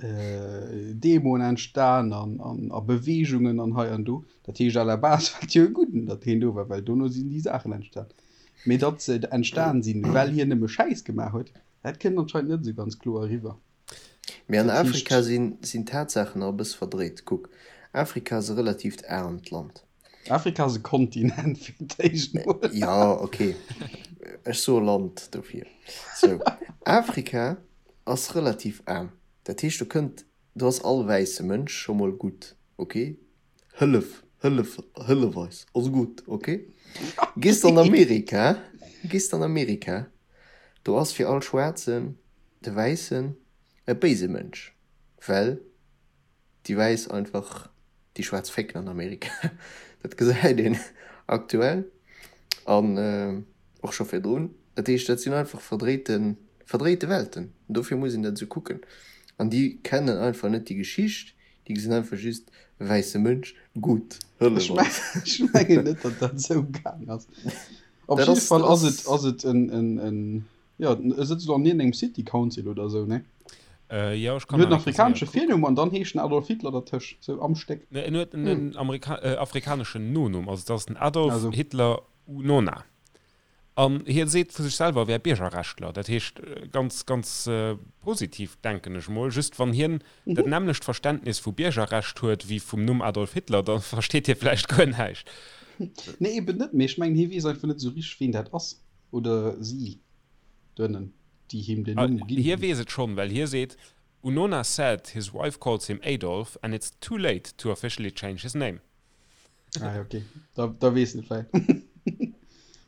Demoen entstan an a Beweegungen an hei an do. Dat heescht à la base war et jo e Gudden, datt hien do war, well dono sinn déi Saachen entstan. Mee datt se entstan sinn, well hien nëmme Schäiss gemaach huet, dat kënnt anscheinend net esou ganz kloer eriwwer. Mee an Dat heescht. Afrika sinn d'Tatsaachen nach e bësse verdréit. Kuck, Afrika ass e relatiivt aarmt Land. Afrika ass e Kontinent fir d'éischt mol. Jo, ok, ech soe Land dofir. Sou, Afrika ass relativ aarm. Dat heescht, do kënnt, do ass all wäisse Mënsch scho mol gutt, ok? Hëllef, hëllef, hëllef eis, ass gutt, ok? Gees de an Amerika, gees de an Amerika, do ass fir all Schwaarzen de Wäissen e béise Mënsch, well Déi Wäiss einfach déi Schwaarz fécken an Amerika. Dat gesäit een aktuell an och scho virdrun. Dat heescht, dat sinn einfach verdréite, verdréite Welten. Dofir muss een dat esou kucken. An déi kennen einfach net déi Geschicht. Déi gesinn einfach just, wäisse Mënsch, gutt, hëllef eis. Ech mengen net, datt dat esou gaang ass. Op jidde Fall ass et, ass et en, en, en, jo, e sëtzt elo an iergendengem City Council oder esou, ne? Jo, ech kann En huet en afrikanesche Virnumm an dann heescht en Adolf Hitler dertëscht, esou am Stéck. Ne, en huet en afrikaneschen Nonumm, also et ass den Adolf Hitler Unona. An hie seet vu sech selwer, e wär Biergerrechtler. Dat heescht, ganz, ganz positiv, denken ech mol. Just wann hien dat nämmlecht Verständnis vu Biergerrecht huet wéi vum Numm Adolf Hitler, da versteet hie vläicht guer näischt. Nee, eben net. Mee ech mengen, hie weess einfach net esou richteg, ween dat ass oder si doënnen, déi him den Numm ginn Hie hunn. weess et schonn, well hie seet, Unona said his wife calls him Adolf and it's too late to officially change his name. Ah, ja, okay. Da, da weess en et vläicht.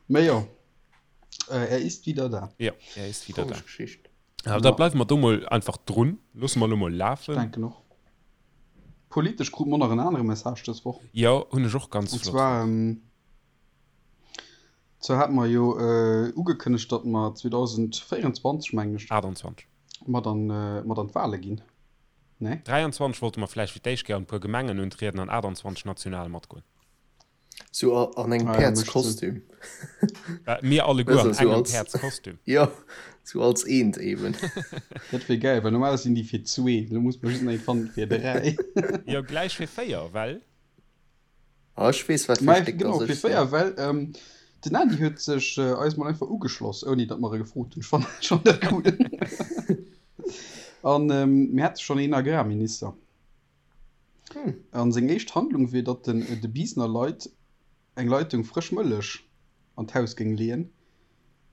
Mä jo, äh, er ist wieder da. Ja, er ist wieder da. Komesch Geschicht. Ja, da bleiwe mer do mol einfach drun. Loosse mer elo mol Ech lafen. denken och. Politesch krute mer nach en anere Message dës Woch. Jo, hunn ech och ganz Und flott zwar, fonnt. ähm, zwar hate mer jo äh, ugekënnegt, datt mer 2024, mengen ech, 28. mat an, äh, mat an d'Wale ginn. Nee? 23 wollte mer vläicht fir d'éischt Kéier an e puer Gemengen untrieden an 28 national matgoen. Sou an engem Ah ja, mécht Sënn. Päerdskostüm. Mir alleguer Weißt an du, sou engem als, Päerdskostüm. jo, sou als eent eben. Dat wier gäil, well normalerweis sinn déi fir zwee, lo muss mer just nach een fannen fir dräi. Jo, gläich fir véier, well. Ah, ech weess wat fir Mä Stéck genau, dass fir ech sinn. véier, well den Andy huet sech eis mol einfach ugeschloss, ouni datt mer e gefrot hunn. Ech fannen schonn dat cool. An mir hätte schonn een Agrarminister. An seng éischt Handlung wier, datt en de Biisner Leit eng Leitung frësch Mëllech an d'Haus géing leeën,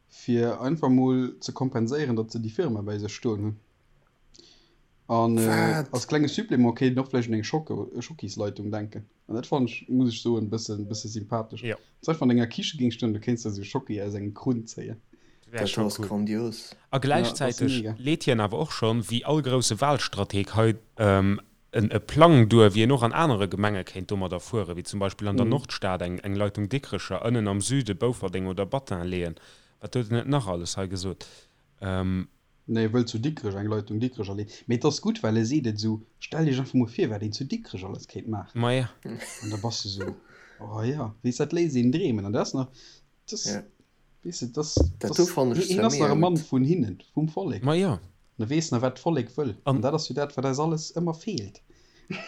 fir einfach mol ze kompenséieren, datt se déi Firma bäi sech stoen hunn. An als klenge Supplément kéint een och vläicht un eng Schokisleitung denken. An dat fannen ech, muss ech soen, bëssen, bësse sympathesch. Jo. Wann s du einfach an denger Kiche géings stoen, du kéints der esou Schocki aus engem Krunn zéien. Wär Dat scho ass cool. grandios. A Ja, dat ass gläichzäiteg mega. leet hien awer och schonn, wéi all grousse Wahlstrateg hei, en e Plang duer, wéi een och an anere Gemenge kéint domadder fueren, wéi zum Beispill an der Nordstad eng eng Leitung Dikrecher, ënnen am Süde Bouferdeng oder Battin leeën. Wat huet en net nach alles hei gesot? Nee, e wëllt zu Dikrech eng Leitung Dikrech erleen. Mee et ass gutt, well e seet et esou, Stellt Iech einfach mol vir, wat een zu Dikrech alles kéint maachen. Maja. An da bass de esou, Oh jo, weess, dat léisst een dreemen. An dat ass nach, dat ass, weess de, dat ass, Dat do fannen ech hien zwar ass nach mega e Mann gutt. vun hinnen, vum Vollek. Maja. An e weess nach, wat d'Vollek wëll. An dat ass jo dat, wat eis alles ëmmer feelt.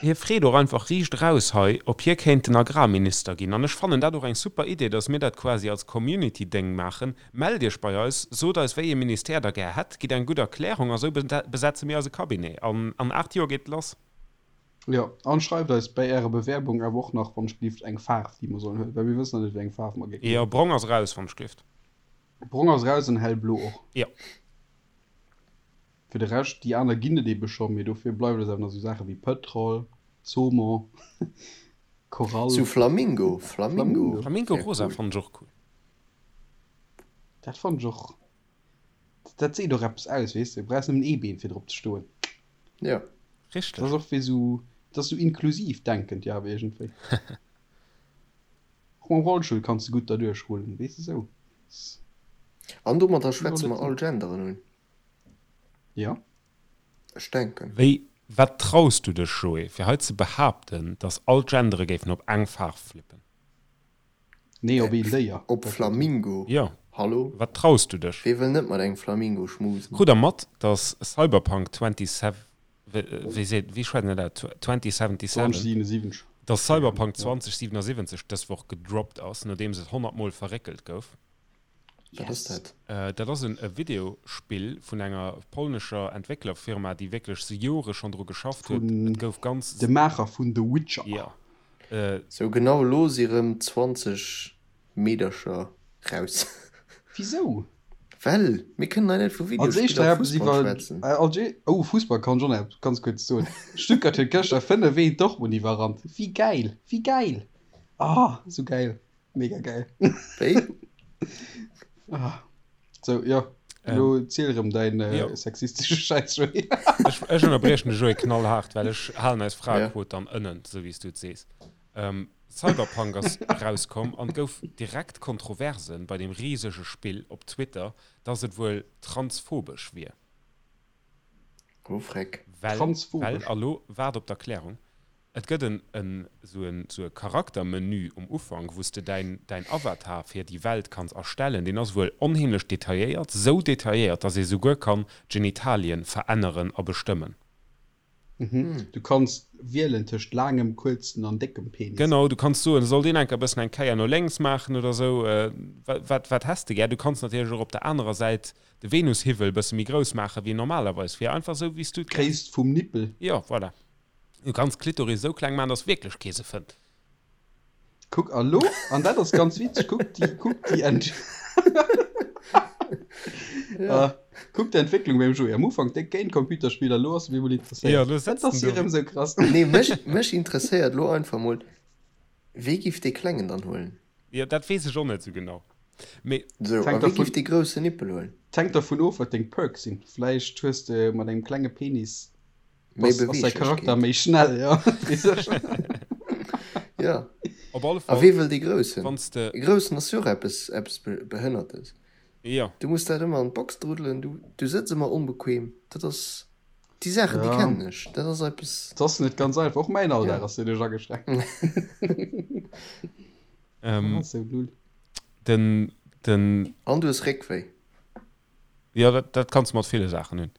Hie freet och einfach riicht eraus hei, ob hie kéint den Agrarminister ginn. An ech fannen dat och eng super Idee, dass mir dat quasi als Community-Déng maachen. Mellt Iech bei eis, sot eis, wéi ee Ministère Der gär hätt, gitt eng gutt Erklärung a sou besetze mir eise Cabinet. An an 8 Joer geet et lass. Jo, an schreift eis bäi Ärer Bewerbung awer och nach, wann ech gelift, eng Faarf, déi mer sollen huelen, well mir wëssen nach net, wéi eng Faarf mer géifen Jo, huelen. brong ass eraus, wann ech gelift. Brong ass eraus an hellblo och. Jo. Fir de Rescht, déi aner ginn et ebe scho, mee dofir bleiwen eis awer nach esou Saache wéi Pëtrol, Saumon, Korall. Sou Flamingo, Flamingo Flamingo wär rosa cool. fannen ech och cool. Dat fannen ech och, dat seet och eppes aus, weess de, du brauchs nëmmen ee Been fir drop ze stoen. Jo. Richteg. Dat ass och wéi esou, dat ass esou inklusiv denkend, jo awer iergendwéi. Och mam Rollstull kanns de gutt derduerch rullen, weess de, esou. An domadder schwätze mer all Genderen un. Jo. Ech denken. Wéi, wat traus du dech, Joé, fir hei ze behaapten, dass all d'Gendere géifen op eng Faarf flippen? Nee, op een Déier. Op Flamingo? Jo. Hallo? Wat traus du dech? Wee wëll net mat engem Flamingo schmusen? Krut der mat, dass Cyberpunk 27, wéi seet, wéi schwätzt een dat aus? 2077? 2077. Dass Cyberpunk 2077 dës Woch gedroppt ass, nodeems et 100 Mol verréckelt gouf? Wat ass dat? Dat ass e Videospill vun enger polnescher Entwécklerfirma, déi wierklech se Jore schonn dru geschafft huet. Vun Et gouf ganz. de Maacher vun The Witcher. Jo. Sou genau elo si rëm 20 Meedercher raus. Wisou? Well mir kënnen hei net vu Als éischt Videospiller a eppes Fussball iwwer schwätzen. als ee oh Fussball kann ech och nach eppes ganz kuerz soen. Stuttgart huet gëschter 5 1 Dortmund iwwerrannt. Wéi gäil! Wéi gäil! Ah sou gäil! Mega geil. Wéi? Ah. So, ja. Elo ähm, ziel erëm däin äh, jo. sexistesche Schäiss, Joé. Ech, ech ënnerbriechen de Joé knallhart, well ech halen eis Fraequot ja. dann ënnen, sou wéi s du et sees. Ähm, Cyberpunk ass rauskomm an gouf direkt Kontroversen bei dem risege Spill op Twitter, dass et wuel transphobesch wier. Oh, Freck. Well, well, a lo waart op d'Erklärung, et gëtt en, en, sou en, sou e Charaktermenü um Ufank, wou s de däin, däin Avatar fir déi Welt kanns erstellen. Deen ass wuel onheemlech detailléiert, sou detailléiert, dass ee souguer kann d'Genitalien veränneren a bestëmmen. Du kanns wielen tëscht laangem, kuerzen an déckem Penis. Genau, du kanns soen, soll deen enker e bëssen eng Kéier no lénks maachen oder sou. Wat, wat häss de gär? Du kanns natierlech och op der anerer Säit de Venushivvel e bësse méi grouss maachen, wéi en normalerweis wier. Einfach sou, wéi s du et gär. D'Gréisst vum Nippel. Jo, voilà. Du kanns d'Klitoris esou kleng maachen, dass wierklech kee se fënnt. Kuck, a lo, an dat ass ganz witzeg, kuck déi, kuck déi Ent ja. Kuck d'Entwécklung beim Joé. Am Ufank déck géint Computerspiller, lo ass e bemol interesséiert. Ja, lo setzt Dat ass jo erëm sou krass. Nee, mech, mech interesséiert lo einfach mol, wee giff dee Klengen dann huelen? Jo, dat weess ech och net sou genau. Mee. Sou, a wee giff dee groussen Nippel huelen? 't hänkt dervun of, wat deng Perks sinn. Vläicht hues de mat engem klenge Penis Méi Ass säi Charakter méi schnell, ja. Ja. Op alle Fall. A wee wëll dee Groussen? Wann s de. E Groussen ass jo och eppes, eppes Behënnertes. Jo. Du muss dat ëmmer an d'Box druddelen, du, du sëtz ëmmer onbequem. Dat ass, déi Saachen, déi kennen ech. Dat ass eppes. Dat ass net ganz einfach. Och mäin Alldag ass doduerch ageschränkt. Ähm. Sou null. Den, den. An du hues Réckwéi. Jo, dat, dat kanns de mat ville Saachen hunn.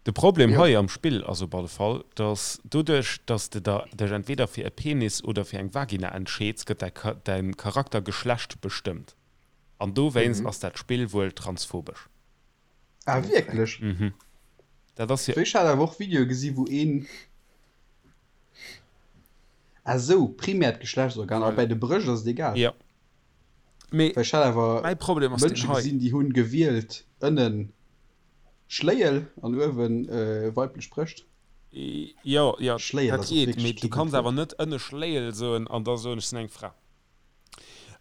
De Problem Jo. hei am Spill ass op alle Fall, dass doduerch, dass de der dech entweder fir e Penis oder fir eng Vagina entscheeds, gëtt däi Cha däin Charaktergeschlecht bestëmmt. An dowéinst Mhm. ass dat Spill wuel transphobesch. Ah, wierklech? Mhm. Dat ass jo. Ech hat awer och Videoe gesi wou een. Ah sou, primäert Geschlechtsorgan, a Voilà. bäi de Brëscht ass et egal. Jo. Mee Well ech hat awer mäi Problem ass deen Mënsche hei. gesinn, déi hunn gewielt ënnen Schléiel an uewen weiblech Brëscht. Jo, jo, Schléiel dat ass och geet, wierklech mee du kee gutt kanns awer Wuert. net ënne Schléiel soen an da soen, ech sinn eng Fra.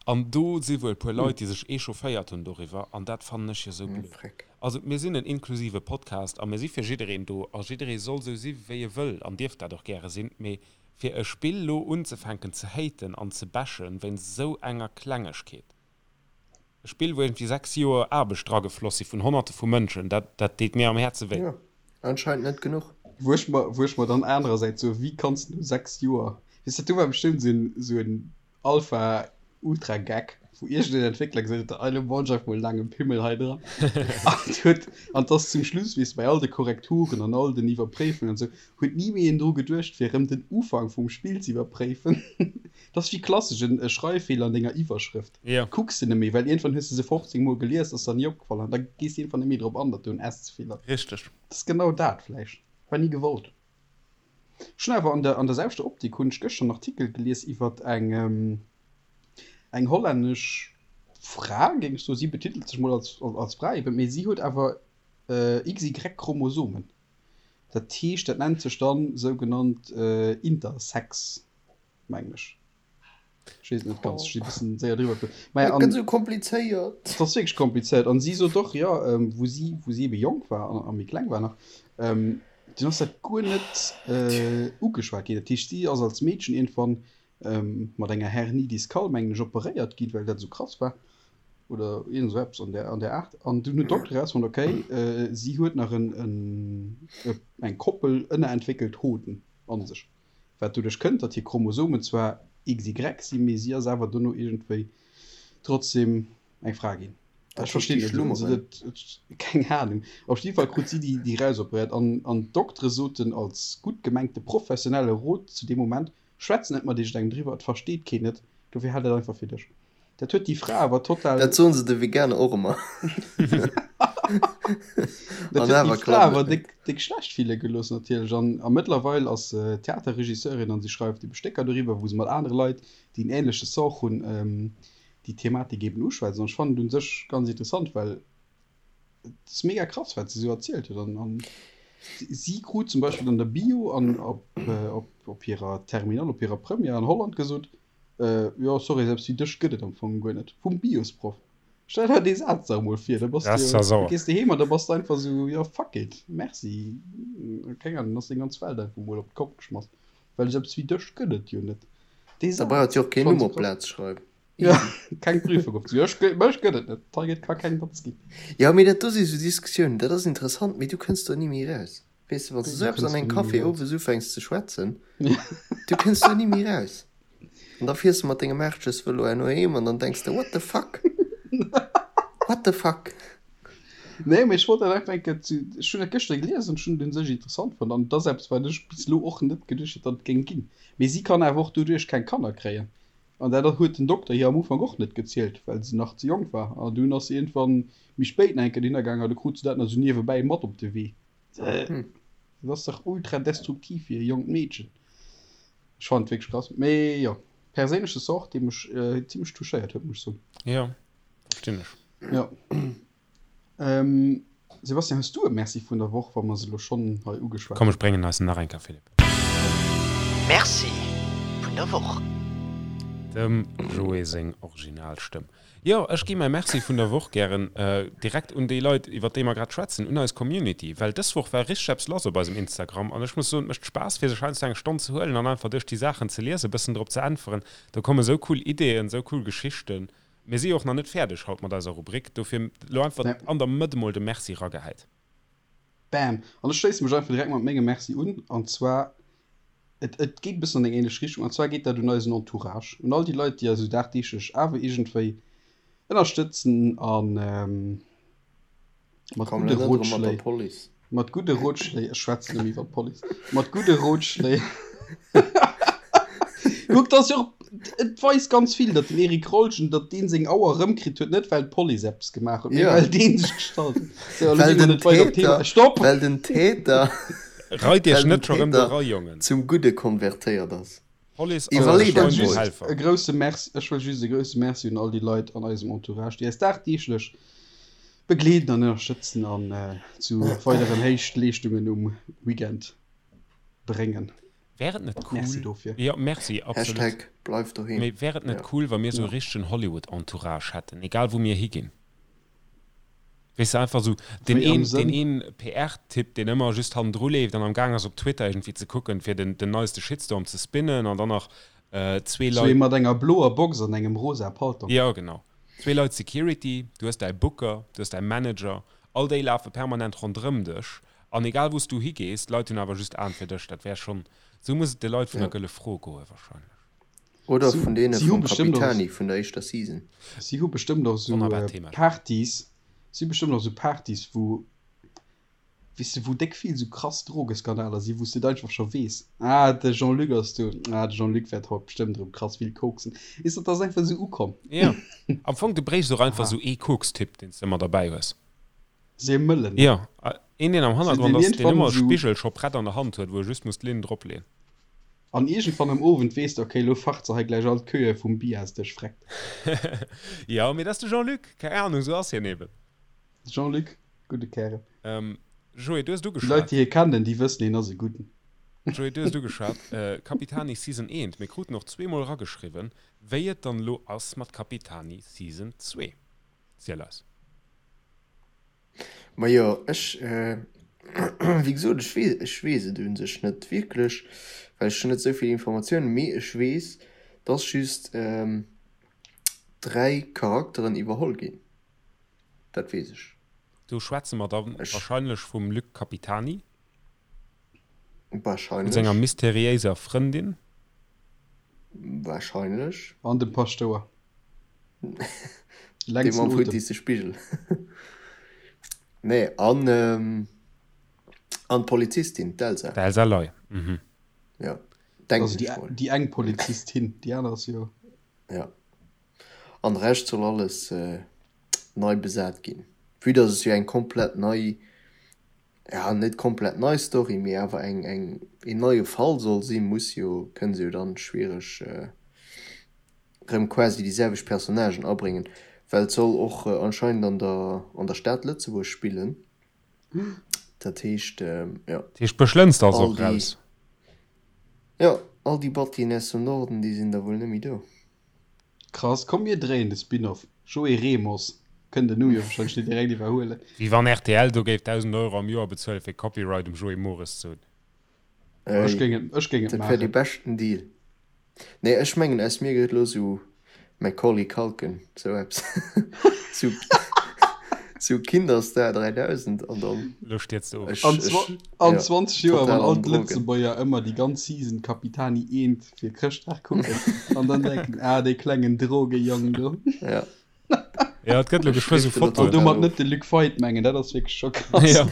An do si wuel e puer Leit, déi sech echaufféiert hunn doriwwer, an dat fannen ech jo sou blöd. Freck. Also mir sinn en inklusive Podcast a mir si fir jiddereen do a jidderee soll sou si wéi e wëll an dierf dat och gäre sinn, mee Fir e Spill lo unzefänken ze haten an ze bashen wéinst esou enger Klengegkeet, e Spill wou iergendwéi 6 Joer Aarbecht dragefloss si vun Honnerte vu Mënschen, dat dat deet mir am Häerze wéi. Jo, anscheinend net genuch. Wou ech mer, wou ech mer dann anerersäits soen, wéi kanns de no 6 Joer, weess de, do war bestëmmt esou en, esou en Alpha Ultra Geck, wou iergendeen Entwéckler gesot huet, elo bauen ech einfach mol en laange Pimmel hei dran. An huet, an 't ass zum Schluss, weess de, bei all de Korrekturen an all den Iwwerpréifungen an esou, huet ni méi een dru geduecht, fir erëm den Ufank vum Spill ze iwwerpréifen. Dat ass wéi klassesch en Schreiffeeler an denger Iwwerschrëft. Jo. Kucks de net méi, well iergendwann hues de se 15 Mol gelies, ass der ni opgefall an da gees de iergendwann net méi drop an, datt do en S ze vill ass. Richteg. Dat ass genau dat vläicht. War ni gewollt. Ech hunn awer an der an der selwechter Optik hunn ech gëschter en Artikel gelies iwwert eng eng hollännesch Fra, géing ech soen. Si betitelt sech mol als als Fra eben, mee si huet awer XY-Chromosomen. Dat heescht, dat nennt sech dann sougenannt Intersex, mengen ech. Ech weess et net ganz, ech si e bëssen séier driwwer geflu. Maja, Dat an gëtt esou komplizéiert. Et ass wierklech komplizéiert. An si sot och, jo, wou si, wou si ebe jonk war an a méi kleng war nach, dunn ass dat guer net ugeschwat ginn. Dat heescht, si ass als Meedchen iergendwann mat enger Hernie discale, mengen ech, operéiert ginn, well dat esou krass war oder iergend esou eppes an där, an där Aart. An dunn huet d'Dokter erausfonnt, okay, si huet nach en, en, eng Koppel ënnerentwéckelt Hoden a sech. Wat doduerch kënnt, datt hir Chromosomen zwar XY sinn, mee si ass awer dono iergendwéi trotzdem eng Fra ginn. Dat Ech verstinn heescht, net, déi also schlummeren. dat, keng Anung. Op jidde Fall krut si déi, déi rausoperéiert an, an d'Doktere soten als gutt gemengte professionelle Rot zu deem Moment, Schwätz net mat iergendengem driwwer, et versteet keen et, dofir hal dat einfach fir dech. Dat huet déi Fra awer total. Dat soen se de Veganer och ëmmer. Dat An huet déi awer Fra klappt awer et net. déck, déck schlecht fille gelooss natierlech. An, a mëttlerweil ass se Theaterregisseurin an si schreift ebe Stécker doriwwer, wou se mat anere Leit, déi en änleche Sort hunn, déi Thematik eben uschwätzt. An ech fannen et un sech ganz interessant, well et ass mega krass, wat se esou erzielt huet. An, an si krut zum Beispill an der Bio an op, op, op hirer Terminale, op hirer Première an Holland gesot, Jo, sorry, selbst wéi dech gëtt et am Fong guer net. Vum Biosproff. Stell der dee Saz dach emol vir, da bass Das du ass jo, da sauer. gees de heem an da bass de einfach esou, jo fuck it, merci, keng Ahnung, dann ass deng ganz Welt einfach emol op d'Kopp geschmass, well selbst wéi dech gëtt et jo net. Dee Da brauch Saz, et jo och keen fand Numm ech op krass. d'Plaz schreiwen. Ja, Easy. keng Prüfung op, jo, ech gë, mech gëtt et net, hei gëtt ka keng Datz ginn. Jo, mee dat do si sou Diskussiounen, dat ass interessant, mee du kënns do ni méi raus. Weess de, wann s de esou eppes an engem Café owes ufänks ze schwätzen, du kënns do ni méi raus. An da fiers de mat dengem Aarschesvëlo herno heem an dann denks de, What the fuck? What the fuck? Nee, mee ech wollt dat einfach eng Kéier zu, ech hunn dat gëschter gelies an ech hunn et un sech interessant fonnt an et ass eppes, wat ech bis elo och net geduecht hätt, datt et géing ginn. Mee si kann awer och doduerch keng Kanner kréien an dat huet den Dokter hir am Ufank och net gezielt, well se nach ze jonk war an dunn ass se iergendwann méi spéit nach eng Kéier dohinner gaangen a du krut se dat nach esou niewebäi mat op de Wee. Dat ass dach ultra destruktiv fir e jonkt Meedchen. Ech fannen et wierklech krass. Mee jo, perséinleche Sort, dee mech zimlech touchéiert huet, muss ech soen. Jo, verstinn ech. Jo. Ähm, Sebastian, hues du e Merci vun der Woch, wa mer se elo schonn hei ugeschwat Komm, ech bréngen eis en nach eng Kéier, Philippe. Merci vun der Woch. Dem Joé seng Originalstëmm. Jo, ech gi mäi Merci vun der Woch gären direkt un déi Leit, iwwer déi mer grad schwätzen, un eis Community, well dës Woch war richteg eppes lass op eisem Instagram an ech muss soen, et mécht Spaass fir sech heiansdo eng Stonn ze huelen an einfach duerch déi Saachen ze liesen, e bëssen drop ze äntweren. Do komme sou cool Ideeën, sou cool Geschichten. Mir si jo och nach net fäerdeg haut mat eiser Rubrik, dofir elo einfach an der Mëtt emol de Merci ragehäit. Bam! An ech schléisse mech einfach direkt mat mengem Merci un, an zwar Et, et geet e bëssen an eng ähnlech Richtung, an zwar geet dat un eisen Entourage, un all déi Leit, déi eis esou dagdeeglech awer iergendwéi ënnerstëtzen a mat Komm, gudde elo net erëm mat der Rotschléi, Police. mat gudde Rotschléi, ech schwätzen nëmme iwwer d'Police, mat gudde Rotschléi, kuck, dat ass jo och, et weist ganz vill, datt den Eric Rolgen, datt deen seng Auer erëmkritt huet, net well d'Police eppes gemaach huet, mee Ja. well dee sech gestallt huet. Sou, elo Well gi mer den net weider op d'Thema, Täter, Stopp! well den Täter Reit iech Well den net scho rëm do Täter ra, Jongen. zum Gudde konvertéiert ass. D'Police ass Iwwerlee eise dat Freund und mol. Helfer. E grousse Merci, ech wëll just e grousse Merci un all déi Leit an eisem Entourage, déi eis dagdeeglech begleeden an ënnerstëtzen an zu weideren Héichtleeschtungen um Weekend bréngen. Wär et net cool. Merci dofir. Jo, merci, absolut. Hashtag bleif doheem. Mee wär et net cool, wa mir esou e richtegen Hollywood-Entourage hätten, egal wou mir higinn? Weess de, einfach esou deen Wéi am een, Sënn? deen een PR-Typ, deen ëmmer just hannendru leeft an am Gaang ass op Twitter iergendwéi ze kucken, fir den, den neiste Shitstorm ze spinnen an dann nach zwee Sou ee Leit. mat enger bloer Box an engem rosa Paltong. Jo, genau. Zwee Leit Security, du hues däi Booker, du hues däi Manager, all déi lafe permanent ronderëm dech an egal wou s du higees, d'Leit hunn awer just Aen fir dech. Dat wär schonn, esou muss et de Leit vun der Ja. Gëlle Fro goe wahrscheinlech. Oder Si, vun deene si hu vum bestëmmt och, Capitani vun der éischter Season. si hu bestëmmt och esou Wonnerbart Thema. Partys, si hu bestëmmt och esou Partys, wou, weess de, wou déck vill esou krass Drogeskandaler sinn, wou s de et einfach scho weess, ah, de Jean-Luc ass do, ah, de Jean-Luc wäert haut bestëmmt erëm krass vill koksen. Weess de, dat ass einfach esou ukomm. Jo, am Fong, du bréichs och einfach Aha. esou ee Kokstipp, deen s de ëmmer derbäi hues. Se mëllen, ne? Jo, een, deen am Se Hannergrond deen ass, deen iergendwann ëmmer e esou. Spigel scho prett an der Hand huet, wou e just muss d'Linn dropleeën. An iergendwann am Owend weess de, okay, lo facht se hei gläich all d'Queue vum Biasdësch, freckt. Jo, mee dat ass de Jean-Luc, keng Ahnung, esou ass hien eben. De Jean-Luc, gudde Kärel. Joé, du hues et Déi Leit, ugeschwat. déi hie kennen, déi wëssen, hien ass e Gudden. Joé, du hues et ugeschwat, Capitani Season 1. Mir kruten och zweemol erageschriwwen, wéi et dann elo ass mat Capitani Season 2. Ziel eis. Majo, ech, wéi gesot, ech weess, ech weess et u sech net wierklech, well ech hunn net esou vill Informatiounen, mee ech weess, dass just 3 Charakteren iwwerholl ginn, dat weess ech. Do schwätze mer da wahrscheinlech vum Luc Capitani. Vun Wahrscheinlech. senger mysteriéiser Frëndin. Wahrscheinlech. An dem Paschtouer. Dee Längsten mam Otem. futtisse Spigel. Nee, an, an d'Polizistin, d'Elsa. D'Elsa Ley, mhm. Ja, denken Also déi, ech mol. déi eng Polizistin, déi aner ass jo. Ja. An de Rescht soll alles nei besat ginn. Vue dass et jo eng komplett nei, ja net komplett nei Story, mee awer eng, eng, een neie Fall soll sinn, muss jo, kënne se jo dann schwiereg rëm quasi déi selwecht Personnagen abréngen, well et soll och anscheinend an der an der Stad Lëtzebuerg spillen. Dat heescht, jo. Dat heescht Bëschlënster ass All och déi, raus. jo, all déi Battien aus dem Norden, déi sinn da wuel net méi do. Krass, komm mir dréien de Spin-off, Joé Remos kënnt den Numm jo wahrscheinlech net direkt iwwerhuelen. Wéi wann rtl do géif 1.000 Euro am Joer bezuelen fir Copyright um Joé Mores ze hunn. Ech géing et, ech géing et Dat wär dee maachen. beschten Deal. Nee, ech mengen aus mir gëtt elo sou Macaulay Culkin, sou eppes. Sou. Sou Kinderstar 3000 an dann. Lo stierz de of. Ech, An, ech, an ja, 20 Joer, total wann all an Drogen. d'Lëtzebuerger ëmmer déi ganz Season Capitani Eent fir Chrëschtdag kucken an dann denken, ah, dee klengen Drogejong do. Ja. Ja, et gëtt lo Ech geschwë sou drifte lo An Fotoen. total domat of. net de Luc Feit mengen, dat ass wierklech scho krass. Ja.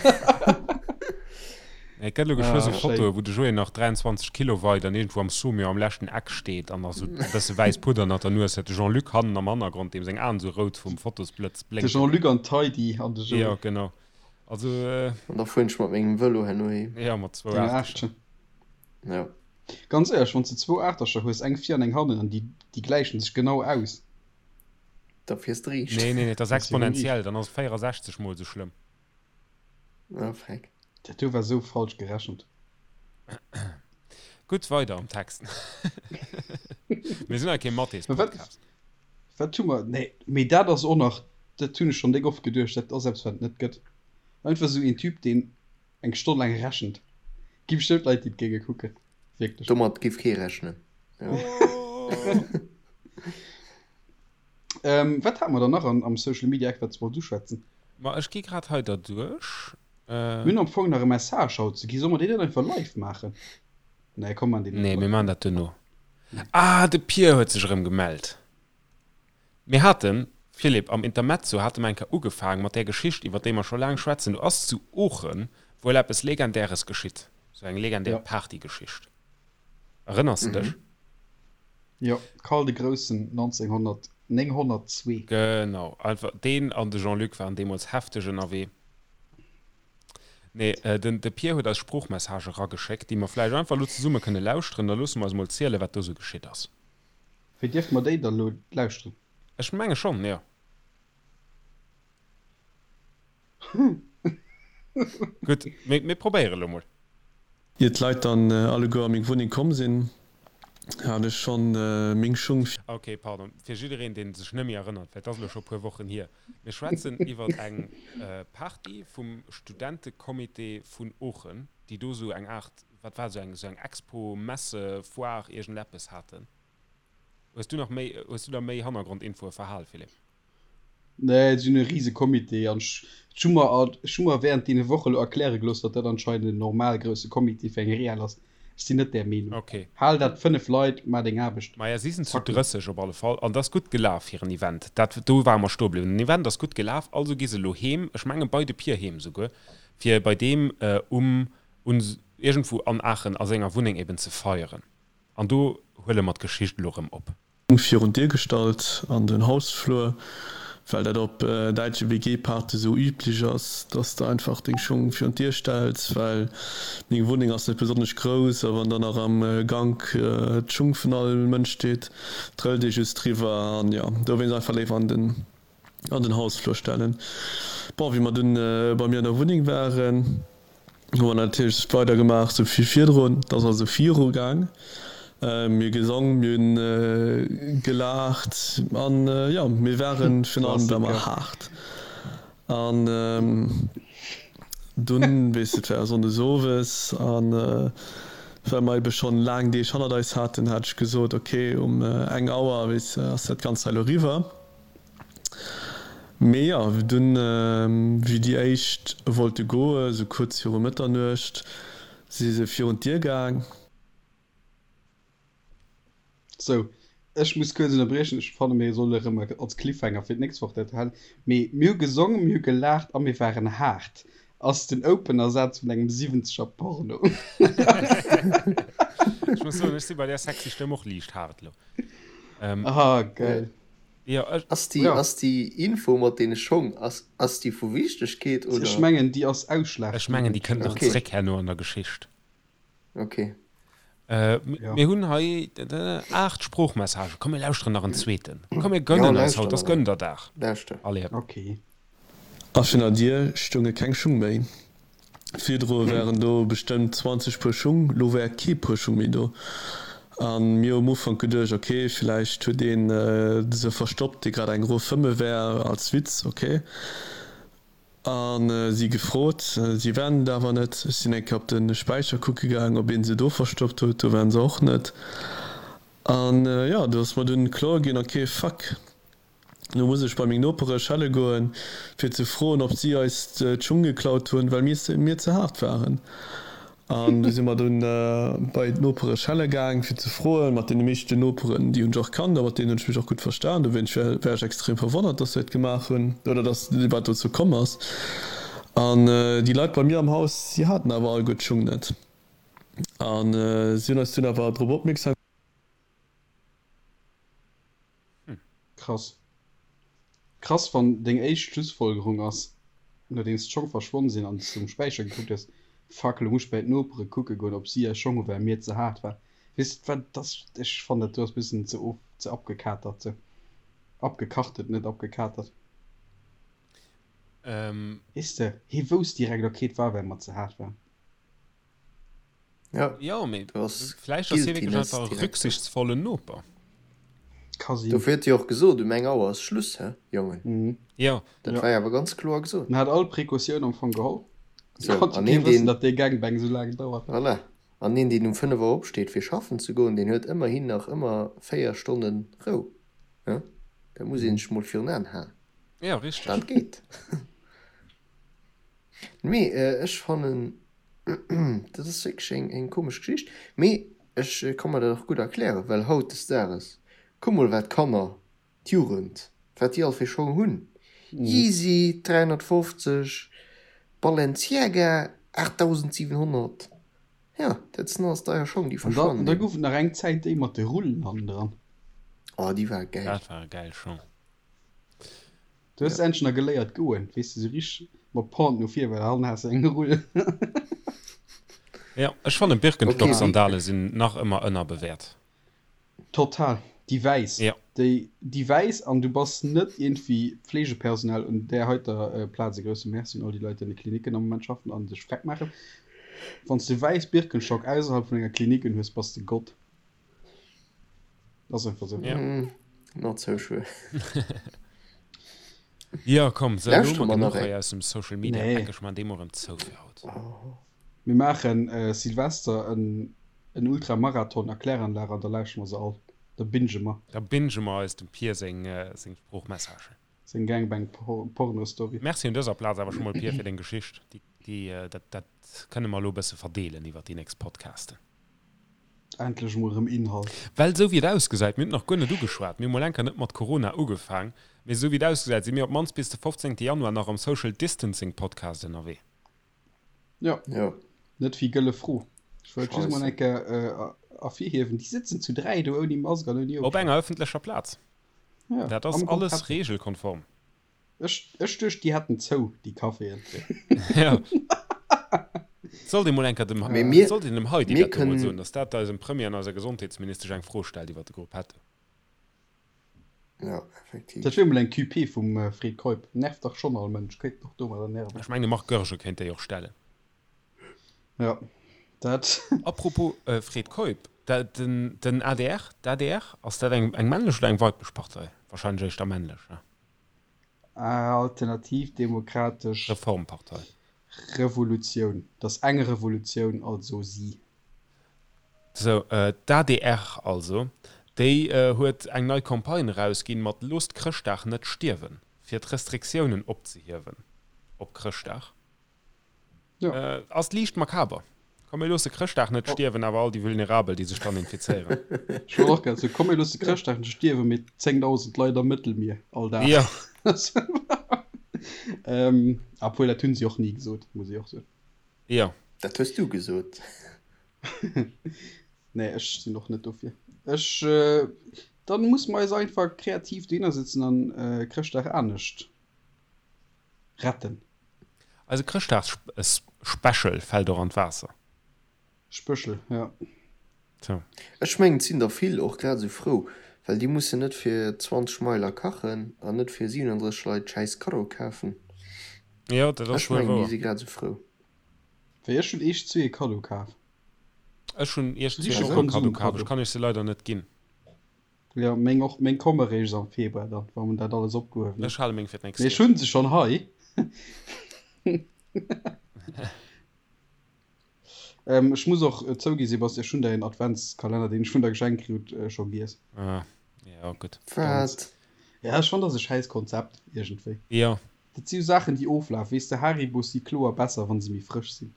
Et gëtt lo geschwë Ah, sou schéin. Fotoe wou de Joé nach 23 Kilo weit an iergendwou am Saumur am leschten Eck steet an nach sou e bësse wäiss Pudder ënnert der Nues huet. De Jean-Luc hannen am Hannergrond, deem seng Aen sou rout vum Fotosblëtz De blénken. Jean-Luc an d'Heidi an de Jo, Joé. genau. Also, An da fueren ech mat mengem Vëlo herno heem. jo, mat zwou Deng Aachtercher. Aarschchen. Ja. Ganz éierlech, wann s de zwou Aachtercher hues, eng vir an eng hannen, an déi, déi gläichen sech genau aus. Da fiers de riicht. Nee, nee, nee, dat ass Dat ass jo riicht. exponentiell, dann ass et 64 mol sou schlëmm. Ah, freck. Dat do war sou falsch gerechent. Gutt, weider am Text. Mir sinn hei kee Mä wat, Mathés-Podcast. wat hu mer? Nee, mee dat ass och nach, dat hunn ech schonn déck oft geduecht, dat ass eppes, wat et net gëtt. Einfach esou een Typ, deen eng Stonn laang rechent. Gi bestëmmt Leit, déi et géinge kucken. Wierklech. Domat giff kee rechnen. Jo. Ähm, wat hate mer dann nach an, am Social Media Eck, wat s wollt uschwätzen? Ma ech gi grad hei derduerch. Mir hunn am Fong nach e Message haut ze gi. Solle mer deen net einfach live maachen? Nee, komm, maan deen net Nee, mir live. maan dat duerno. Ah, de Pier huet sech erëm gemellt. Mir haten, Philippe, am Intermezzo hate mer eng Kéier ugefaang mat där Geschicht, iwwer déi mer scho laang schwätzen. Do ass zu Oochen wuel eppes Legendäres geschitt, sou eng legendär Ja. Partygeschicht. Erënners de dech? Jo, Karl de Groussen 1900, 902. Genau, einfach deen an de Jean-Luc waren deemools hefteg ënnerwee. Nee, den de Pier huet eis Sproochmessage erageschéckt, déi mer vläicht einfach elo zesumme kënne lauschteren. Da loosse mer eis mol zielen, wat do sou geschitt ass. Wéi dierfe mer déi da lo lauschteren? Ech menge schonn, jo. Gutt, mir, mir probéiere lo mol. Ier d'Leit dann alleguer a meng Wunneng komm sinn, hat ech schonn meng Schung. Ok, pardon, fir jiddereen, deen sech net méi erënnert, well et ass elo scho e puer Wochen hier, Mir schwätzen iwwer eng Party vum Studentecomité vun Oochen, déi do sou eng Aart, wat war, sou eng, sou eng Expo, Messe, Foire, iergendeppes haten. Hues du nach méi, hues du da méi Hannergrondinfoe verhal, Philippe? Nee, si hunn e rise Comité an ech hu mer, ech hu mer während deene Woche lo erkläre gelooss, datt dat anscheinend en normal grousse Comité fir eng Real ass. Ech sinn net där Meenung. Ok. Hal dat 5 Leit, maach deng Aarbecht. Maja, si sinn zu Zack. 30 op alle Fall an et ass gutt gelaf, hiren Event. Dat, do ware mer stoe bliwwen. Den Event ass gutt gelaf, also gi se elo heem, ech menge bei de Pier heem souguer, fir bei deem um, un, iergendwou an Aachen a senger Wunneng eben ze feieren. An do huele mer d'Geschicht elo erëm op. Virun d'Dier gestallt an den Hausflur, well dat op däitsche WG-Parte sou üblech ass, dass de einfach deng Schung virun d'Dier stells, well meng Wunneng ass net besonnesch grouss a wann dann nach am Gank d'Schung vun all Mënsch steet, trëllt ee just driwwer an jo, dowéinst einfach léiwer an den an den Hausflur stellen. Bon, wéi mer dunn bei mir an der Wunneng waren, hu mer natierlech weider gemaach sou wéi virdrun. Et ass also viru gaang. Mir hu gesong, mir hunn gelaacht an jo, mir waren virun allem war mer Klassiker. haart. An dunn, weess de, et war Sonndes owes an well mer ebe schonn laang Deeg hannert eis haten, hat ech gesot, ok, um eng Auer, weess de, ass dat Ganzt hei elo eriwwer. Mee jo, dunn, wéi déi éischt wollte goe, sou kuerz viru Mëtternuecht, si se virun d'Dier gaang. Sou, ech muss kuerz ënnerbriechen, ech fanne mir solle erëm als Cliffhanger fir d'nächst Woch dat halen, mee mir hu gesongen, mir hu gelaacht a mir waren haart ass den Opener-Saz vun engem siwwenzeger Porno. Ech muss soen, ech si bei där sexy Stëmm och liicht haart elo. Ah, geil. Jo, ech. Ass déi, Ja. ass déi Info mat deene Schong, ass, ass déi vu Wichtegkeet, Ech oder? mengen, déi ass Ech mengen, déi ausschlaggebend. kënnt nach Okay. zréck herno an der Geschicht. Okay. Äh, Ja. mir hunn hei 8 Sproochmessagen. Komm, mir lauschteren nach en zweeten. Komm, mir Ja, gönnen eis lauschter haut, ass nach een. Gönderdag. Lauschter. Allez, hëpp. Okay. A virun der Dier stounge keng Schung méi. Virdru waren do bestëmmt 20 Puer Schung, lo war kee Puer Schung méi do. A mir hu um Ufank geduecht, ok, villäicht huet een se verstoppt, dee grad eng erof fëmme war, als Witz, ok. A si gefrot, si waren et awer net. Ech sinn eng Kéier op de Späicher kucke gaang, ob ee se do verstoppt huet, do waren se och net. An jo, do ass mer dunn kloer ginn, ok, fuck. Du muss ech bei meng Nopere schelle goen, fir ze froen, ob si eis d'Schung geklaut hunn, well mir ze haart waren. An du si mer dunn bei d'Nopere schelle gaang, fir ze froen. Mat deene meeschten Noperen, déi hunn ech och kannt a mat deenen hunn ech mech och gutt verstan. Dowéinst war ech extrem verwonnert, dass se dat gemaach hunn oder dass wat dozou komm ass. An déi Leit bei mir am Haus, si haten awer alleguer d'Schung net. A si hunn eis dunn awer drop opmierksam. Krass. Krass wann deng éischt Schlussfolgerung ass, nodeems d'Schong verschwonn sinn an s de um Späicher gekuckt hues, Fuck, lo muss ech bäi d'Nopere kucke goen, ob si eis Schong hu well mir ze haart war. Weess de wat, dat ass, ech fannen dat do ass bëssen ze of, ze abgekatert sou. Abgekachtet, net abgekatert. Weess de, hie wousst direkt, ok, et war well mer ze haart waren. Ja, Jo, mee do ass vläicht ass hie wierklech Guiltiness einfach e direkt do. rücksichtsvollen Noper. Ka sinn. Dofir huet hie och gesot, um eng Auer ass Schluss, hä, Jongen. Mhm. Jo. Dat Ja. war jo awer ganz kloer gesot. En hat all Precautioun am Fong geholl. Sou, Konnt jo an kee een, wëssen, deen, datt dee Gangbang esou laang dauert. voilà, an een, deen um 5 Auer opsteet, fir schaffen ze goen, deen huet ëmmerhin nach ëmmer 4 Stonne Rou, hä? Dat muss ee sech mol virun Aen halen. Jo, richteg. Dat geet. Mee ech fannen, dat ass wierklech eng, eng komesch Geschicht. Mee ech ka mer dat och gutt erklären, well hautdesdaages, kuck mol wat d'Kanner, d'Jugend, wat déi all fir Schong hunn, Yeezy 350, Balenciaga 8700, jo, dat sinn alles deier Schong, déi An da, verschwannen da eben. gouf et nach eng Zäit déi mat de Rullen hannendran. Oh, déi ware gäil. Dat ware gäil Schong. Du hues endlech nach geléiert goen, weess de, sou richteg mat Pointe no vir, well hannen has de eng Rull. Jo, ech fannen Birkenstock-Sandale sinn nach ëmmer ënnerbewäert. Total, déi wäiss, Jo. déi, déi wäiss, an du bass net iergendwéi Pflegepersonal un där heiter Plaz. E grousse Merci un all déi Leit, déi an de Klinicken am Moment schaffen a sech freck maachen. Wann s de wäiss Birkenstock ausserhalb vun enger Klinik unhues, bass de Gott. Ass einfach sou. Ja. Mm, not so sure. Ja, komm, so, elo Lauschteren hu mer mer genuch nach hei eng. aus dem Social Media Nee. Eck. Ech man dee mol erëm zou fir haut. Mir maachen äh, Silvester en, en Ultramarathon a Kläranlag an da lauschtere mer se all. Da binge mer. Da binge mer eis dem Pier seng, seng Sproochmessagen. Seng Gangbang Porno Story. Merci un dëser Plaz awer scho mol Pier fir deng Geschicht. Déi, déi, dat, dat kënne mer elo e bësse verdeelen iwwer déi nächst Podcasten. Endlech emol erëm Inhalt. Well esou wéi et ausgesäit, mir hunn et nach guer net ugeschwat, mir hu mol enker net mat Corona ugefaang, mee esou wéi et ausgesäit, si mir op d'mannst bis de 15 Januar nach am Social Distancing Podcast ënnerwee. Jo, Jo. net wéi Gëlle Fro. Ech wollt just mol Scheisse. eng Kéier ervirhiewen, déi sëtzen zu 3 do ouni Mask an ouni Op Ofstand. enger ëffentlecher Plaz. Ja, Dat ass am Grupp alles Happy. regelkonform. Ech, ech duecht, déi hätten zou, déi Caféen. Ja. Sollt ee mol enker dem, Mee mir, sollt een dem Heidi mir dat do mol kënnen. soen, dass dat eisem Premier an eiser Gesondheetsministesch eng Fro stellt iwwer de Gruppetto. Ja, effektiv. Dat wier mol eng QP vum Fred Keup. Nervt dach schonn all Mënsch, kéint och domadder nerven. Ech mengen de Marc Goergen kéint déi och stellen. Ja, dat. Apropos Fred Keup, den, den adr, d'ADR, ass dat eng, eng männlech oder eng weiblech Partei? Wahrscheinlech éischter männlech, ne? Alternativ Demokratesch Reformpartei. Revolutioun. Dat ass eng Revolutioun, also si. Sou, d'ADR also, déi huet eng nei Campagne erausginn mat Loosst Chrëschtdag net stierwen, fir d'Restriktiounen opzehiewen op Chrëschtdag. Jo. Ass liicht makaber. Komm mir loosse Chrëschtdag net stierwen, awer all déi Vulnerabel, déi sech dann infizéieren. Ech wollt och grad soen, komm mir loosse Chrëschtdag net stierwen, mee 10.000 Leit am Mëttelmier all Dag. Jo. Obwuel, dat hunn si och ni gesot, muss ech och soen. Jo. Dat hues du gesot. Nee, ech sinn och net dofir. Ech, dann musse mer eis einfach kreativ dohinner sëtzen an Chrëschtdag anescht retten. Eise Chrëschtdagsspecial fält och an d'Waasser. Spëschel, jo. Tjo. Ech mengen et sinn der vill och grad esou frou, well déi mussen net fir 20 Meiler kachen an net fir 37 Leit schäiss Kaddo kafen. Jo, dat ass Ech wuel mengen déi wouer. si grad esou frou. Wéi ech hunn iech zwee e Kaddo kaf. Ech hunn iech Siche zwee och e Kaddo kaf, Konsumkaddo. ech kann iech se leider net ginn. Jo, meng och, meng komme réischt am Februar dann, wa mer dat alles opgehuewen hunn. Ech hale meng fir d'nächst Mee ech Joer. hunn se schonn hei. Ech muss och zougi Sebastian, ech hunn däin Adventskalenner, deen ech vun der geschenkt kritt, scho giess. Ah, jo, gutt. Wat? Ja, ech fannen, dat ass e schäiss Konzept iergendwéi. Jo. Dat si jo Saachen, déi oflafen. Weess de, Haribos si kloer besser, wa se méi frësch sinn.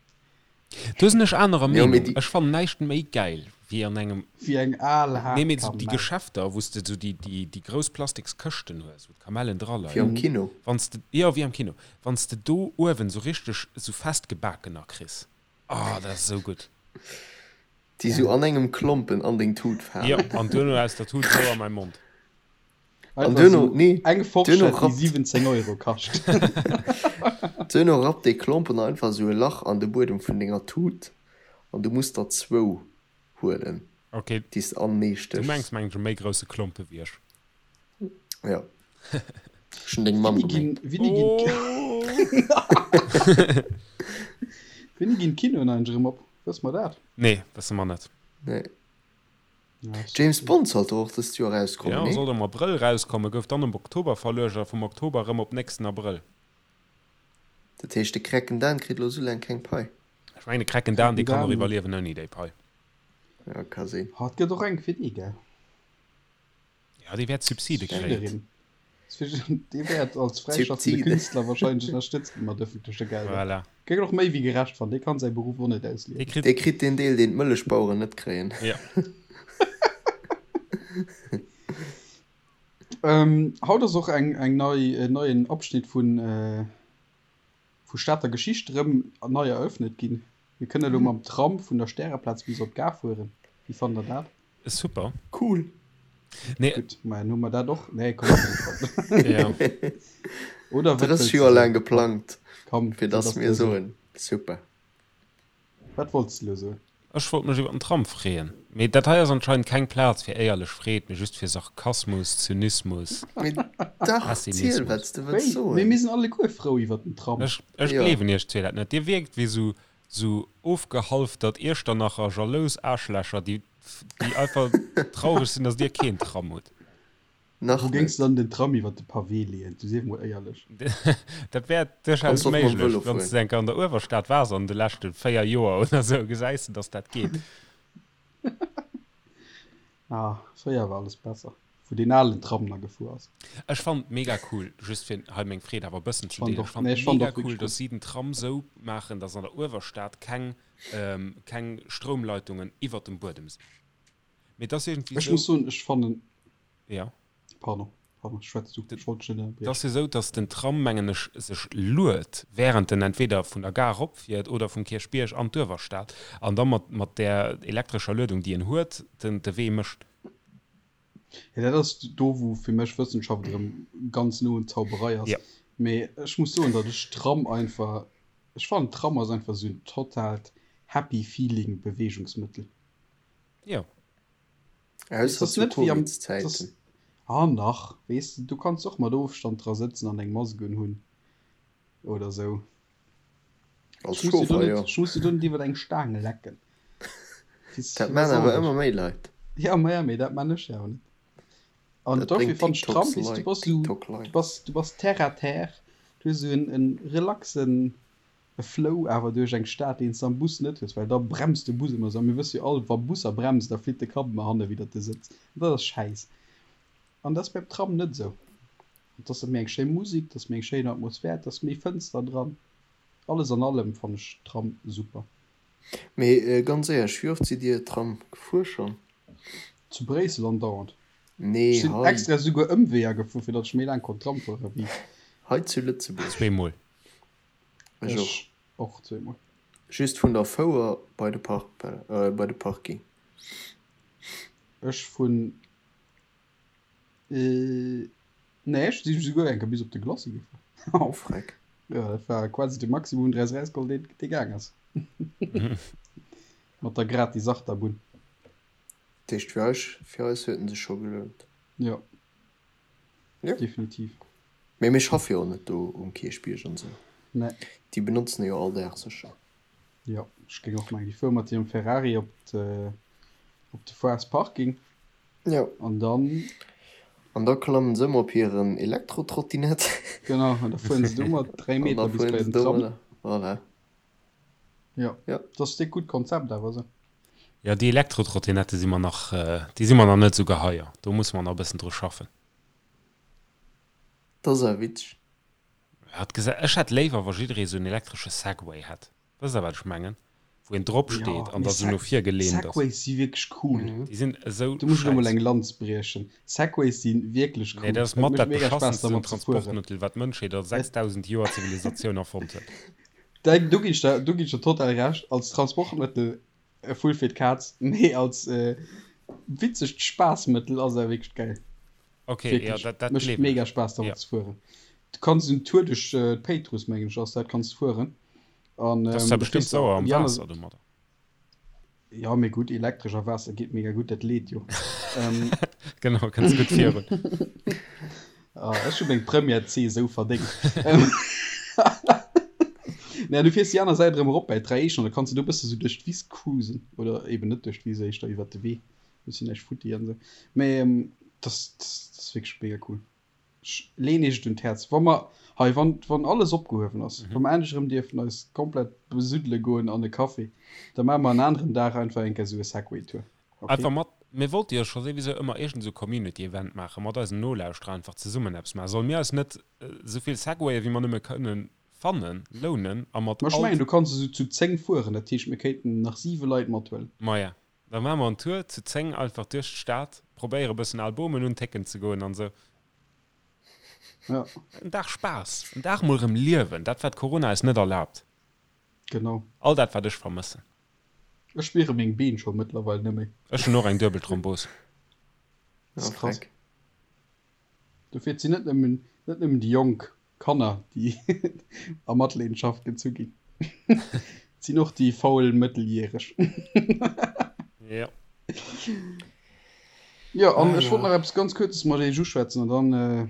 Do sinn ech anerer Meenung. Ech fannen näischt méi gäil wéi an engem. Wéi eng al haart Nee, mee esou déi Geschäfter, wou s de esou déi, déi, déi grouss plastiks Këschten hues, wou d'Kamellen dra leien. Wéi am Kino. Wann s de, jo, wéi am Kino. Wann s de do uewen esou richteg esou festgebakener kriss. Oh, dat ass esou gutt. Déi esou an engem Klompen an deng Tut falen. Jo, an duerno aus der Tut esou a mäi Mond. An duerno, nee, eng Forschett, déi 17 Euro kascht. Duerno rappt dee Klompen einfach esou e Lach an de Buedem vun denger Tut an du muss der zwou huelen, Okay, déi s de anenee du stéchs. mengs mengen ech e méi grousse Klompe wéi ech. Jo, ech hunn deng Mamm Wéini ginn, gemengt. wéini ginn, wéini ginn d'Kinoen eigentlech erëm op? Wësse mer dat? Nee, wësse mer net. Nee. James Bond sollt och dëst Joer erauskommen, nee? Jo, sollt am Abrëll erauskommen, gouf dann op Oktober verluecht a vum Oktober erëm op nächsten Abrëll. Dat heescht, de Krecken Dan kritt elo esou laang keng Pai? Ech mengen, de Krecken Dan, dee kann och iwwerliewen ouni déi Pai. Jo, ka sinn. Ha, et gëtt och eng fir dee, gell? Ja, dee wäert Subside kréien. Dee wäert als fräischaffende Künstler wahrscheinlech ënnerstëtzt gi mat ëffentleche Gelder. Voilà. Géif och méi wéi gerecht fannen. Dee kann säi Beruff och net ausliewen. Dee kritt. Dee kritt deen Deel, deen d'Mëllechbaueren net kréien. Ja. Haut ass och eng eng nei en neien Abschnitt vun vu Stater Geschicht erëm nei eröffnet ginn. Mir kënne elo mam Tram vun der Stäreplaz bis op d'Gare fueren. Wéi fannt der dat? Super. Cool. Nee. Gutt, ma dann hu mer dat och. Nee, komm, komm. Ja. Oder wat 30 wëlls du Joer soen? laang geplangt, Komm, fir wat dass ass mir do esou? soen, super. Wat wollts de elo soen? Ech wollt mech iwwer den Tram freeën. Mee dat hei ass anscheinend keng Plaz fir éierlech Freed, mee just fir Sarkasmus, Zynismus, Mee dach, ziel, Pessimismus. wat s de wëlls Wéi? Mee soen. mir sinn alleguer frou iwwer den Tram. Ech, ech Jo. gleewen iech zwee dat net. Dir wierkt wéi sou, sou ofgehalftert Iechternacher jalous Aarschlächer, déi déi einfach traureg sinn, dass dir keen Tram hutt. Nach Wou géings net. de dann den Tram iwwer de Pavé leeën? Du sief mol éierlech. Dat wär duerchaus Kanns och mam méiglech. Vëlo Wann s fueren. de enker an der Uewerstad waars an de leschte 4 Joer oder sou, gesäis de, dass dat geet. Ah, fréier war alles besser, wou deen alen Tram na gefuer ass. Ech fannen et mega cool, just fir hei meng Freed awer e bëssen Ech ze fannen deelen, och, ech fannen nee, et ech fannen mega och cool, wierklech dass gutt. si den Tram sou maachen, dass an der Uewerstad keng keng Stroumleitungen iwwert dem Buedem sinn. Mee et ass iergendwéi Ech sou. muss soen, ech fannen. Ja. Pardon, pardon, schwätz du, ech wollt dech net Et ass ënnerbriechen. jo sou, dass den Tram, mengen ech, sech luet, während en entweder vun der Gare eropfiert oder vum Kierchbierg an d'Uewerstad an da mat mat där elektrescher Luedung, déi en huet, den de Wee mécht. Jo, dat ass do, wou fir mech Wëssenschaft erëm ganz no un Zauberei ass. Ja. Mee ech muss soen, datt ech Tram einfach, ech fannen Tram ass einfach esou en totaalt happy feeling Beweegungsmëttel. Jo. Weess, Ausser ass zu net wéi am, Covid-Zäiten. ass, ah nach, weess de, du kanns och mat Ofstand dra sëtzen an eng Mask unhunn oder esou. Als Ech muss dir do Chauffer, net, jo. ech muss dir do net iwwer eng Staang lecken. Dat maan awer ëmmer méi Leit. Ja, ma ja, mee dat maan ech jo awer net. An Dat dofir bréngt fannt ech Tram, TikToks weess du, Leit, bass sou, TikTok du Leit. bass, du bass terre à terre, du hues sou en, en relaxen Flow awer duerch eng Stad, deen s de am Bus net hues, well da bremst de Bus ëmmer sou. A mir wësse jo all, wa Busser bremsen, da flitt de Kapp ëmmer hanne widder de Sëtz. An dat ass schäiss. An dat ass beim Tram net esou. Et ass méi eng schéi Musik, et ass méi eng schéin Atmosphär, et ass méi Fënster dran. Alles an allem fann ech Tram super. Mee ganz éierlech, wéi oft sidd Dir Tram gefuer schonn? Zu Bréissel andauernd. Nee, Ech sinn hei. extra souguer Ëmweeër gefuer, fir datt ech méi laang konnt Tram fuere wéi. Hei zu Lëtzebuerg. Zweemol. Ech och. Ech och zweemol. Just vun der Fouer bei de Park, bei de Parking. Ech vun. Nee, ech si souguer eng Kéier bis op de Glacis gefuer. Oh freck. Jo, dat war quasi de Maximum un Dräis erausgeholl, deen dee gaang ass. Mat der gratis Achterbunn. Dat heescht fir eis, fir eis huet en sech scho gelount. Jo. Jo. Definitiv. Mee mir schaffe jo och net do um Kierchbierg an esou. Nee. Déi benotzen e jo all Dag sécher. Jo, ech géing och mengen, déi fuere mat hirem Ferrari op de, op de Foires Parking. Jo. An dann. An da klammen se ëmmer op hiren Elektrotrottinett. Genau, an da fueren se domat 3 An da Meter bis fueren bei se den Tram. domadder. Voilà. Jo. Jo. Dat ass e gutt Konzept awer esou. Jo, déi Elektrotrottinette si mer nach, déi si mer nach net esou geheier. Do musse mer nach e bëssen dru schaffen. Dat ass awer witzeg. Hat gesa ech hätt léiwer wa jidderee sou en elektresche Segway hätt. Wësst der wat ech mengen? Wou een drop steet an da sou no vir gelehnt ass. Segways si wierklech cool. Déi sinn esou Do muss ech elo mol eng Lanz briechen. Segways si wierklech cool. Nee, dat ass mat dat beschassensten Transportmëttel wat d'Mënschheet a 6000 Joer Zivilisatioun erfonnt huet. Do ginn ech der, do ginn ech der total Recht. Als Transportmëttel e Vull fir d'Kaz, mee als witzegt Spaassmëttel ass et awer wierklech geil. Ok, jo, dat, dat Mécht gleewen mega ech. Spaass dermat Jo. ze fueren. Du kanns en Tour duerch d'Péitruss, mengen ech ass dat, kanns de fueren. An Dat ass zwar da bestimmt kriss de sauer am déi aner. Waasser domadder. Jo, mee gutt, elektresch a Waasser geet mega gutt, dat leet jo. Genau, kënns gutt virun. Ah, ech hu meng Première C esou verdéngt. Nee, an du fiers déi aner Säit erëm erop bäi d'Dräieschen an da kanns de do e bësse sou duerch d'Wiss cruisen. Oder eben net duerch d'Wiss, éischter iwwert de Wee. Bëssen näischt futti an esou. Mee das, das, das ass wierklech mega cool. Ech leen iech et un d'Häerz. Wa mer hei, wann, wann alles opgehuewen ass, wa mer endlech erëm dierfen eis komplett besuddele goen an e Café, da maache mer en aneren Dag einfach eng Kéier esou e Segway-Tour. Okay? Einfach mat, mir wollte jo scho souwisou ëmmer iergend esou Community Event maachen, mat eisen Nolauschterer einfach zesummen eppes maachen. Solle mir eis net esou vill Segwaye wéi mer nëmme kënnen fannen, lounen a mat Ma ech all. mengen, du kanns esou zu 10 fueren, dat heescht mir kéinten nach 7 Leit mathuelen. Maja, Da maache mer en Tour zu 10 einfach duerch d'Stad, probéiere bëssen al Bomen untécken ze goen an esou. Ja. En Dag Spaass, en Dag mol erëm liewen, dat wat Corona eis net erlaabt. Genau. All dat wat ech vermëssen. Ech spiere meng Been scho mëttlerweil net méi. Ech hunn och eng duebel Thrombos. Dat ass krass. Dofir, et sinn net nëmmen, net nëmmen déi Jonk Kanner, déi a Matleedenschaft gezu ginn. Et sinn och déi faul Mëtteljäreg. Jo. Jo, an ech wollt nach eppes ganz Kuerzes mat iech uschwätzen an dann,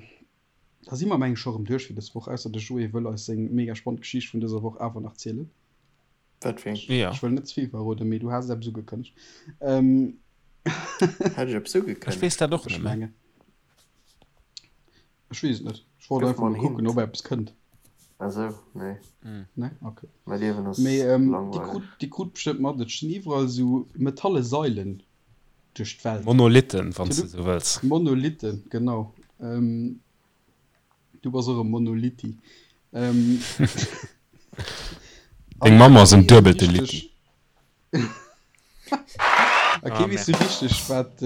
da si mer meng ech scho erëm duerch fir dës Woch, ausser de Joé wëll eis seng mega spannend Geschicht vun dëser Woch awer nach zielen. Wat fir eng? Jo. Ech wëll net ze vill verroden, mee du has eppes ugekënnegt. Hat ech eppes Ech ugekënnegt? weess dat och Ech net méi. mengen. Ech weess et net. Ech wollt Gëff einfach mer mol en kucken, Hint. ob eppes kënnt. Ah sou, nee. Nee? Okay. Mäi Liewen ass Mee ähm, déi langweileg. krut, déi krut bestëmmt mat, et stinn iwwerall esou metalle Sailen duerch d'Welt. Monolithen, wann s de esou wëlls. Monolithen, genau. Ähm, du bass och e Monolitti. Ähm, Deng Mamm ass en duebelte Litti. A kee weess sou richteg, wat,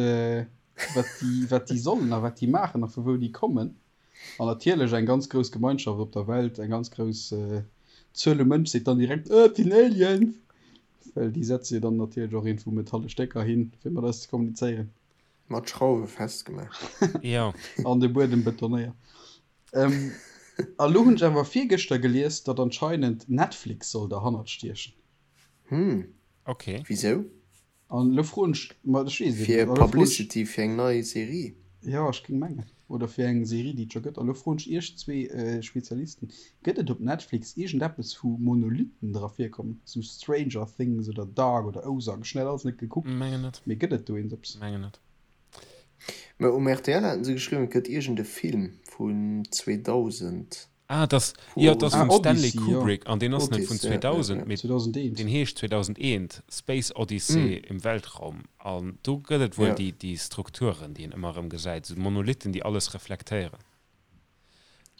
wat déi, wat déi sollen a wat déi maachen a vu wou déi kommen. An natierlech eng ganz grouss Gemeinschaft op der Welt, eng ganz grouss Zuel u Mënsch seet dann direkt, Äh, et sinn Aliens! Well déi setze jo dann natierlech och iergendwou metalle Stécker hin, fir mat eis ze kommunizéieren. Mat Schrauwe festgemaach. Jo. An de Buedem betonéiert. A lo hunn ech awer virgëschter gelies, datt anscheinend Netflix soll derhannert stiechen. Hm. Ok. Wisou? An elo froen ech, ma ech weess et Fir net, an elo froen ech, Publicity fir eng nei Serie? jo, ech géing mengen, oder fir eng Serie, déi et scho gëtt. An elo froen ech iech zwee Spezialisten, Gëtt et op Netflix iergendeppes, wou Monolithen dra virkommen, sou Stranger Things oder Dark oder Ozark? Ech hunn dat alles net gekuckt, Mengen net. mee gëtt et do eens eppes? Mengen net. Mä um rtl haten se geschriwwen, et gëtt iergend e Film vun 2000. Ah, dat ass, jo, dat ass Ah, vum Stanley Odyssey, jo. Kubrick an deen ass net vun Odyssey, ja, ja, 2000, ja. mee 2001. deen heescht 2001, Space Odyssey im Weltraum. An do gëtt et wuel Ja. déi, déi Strukturen, déi een ëmmer erëm gesäit, esou Monolithen, déi alles reflektéieren.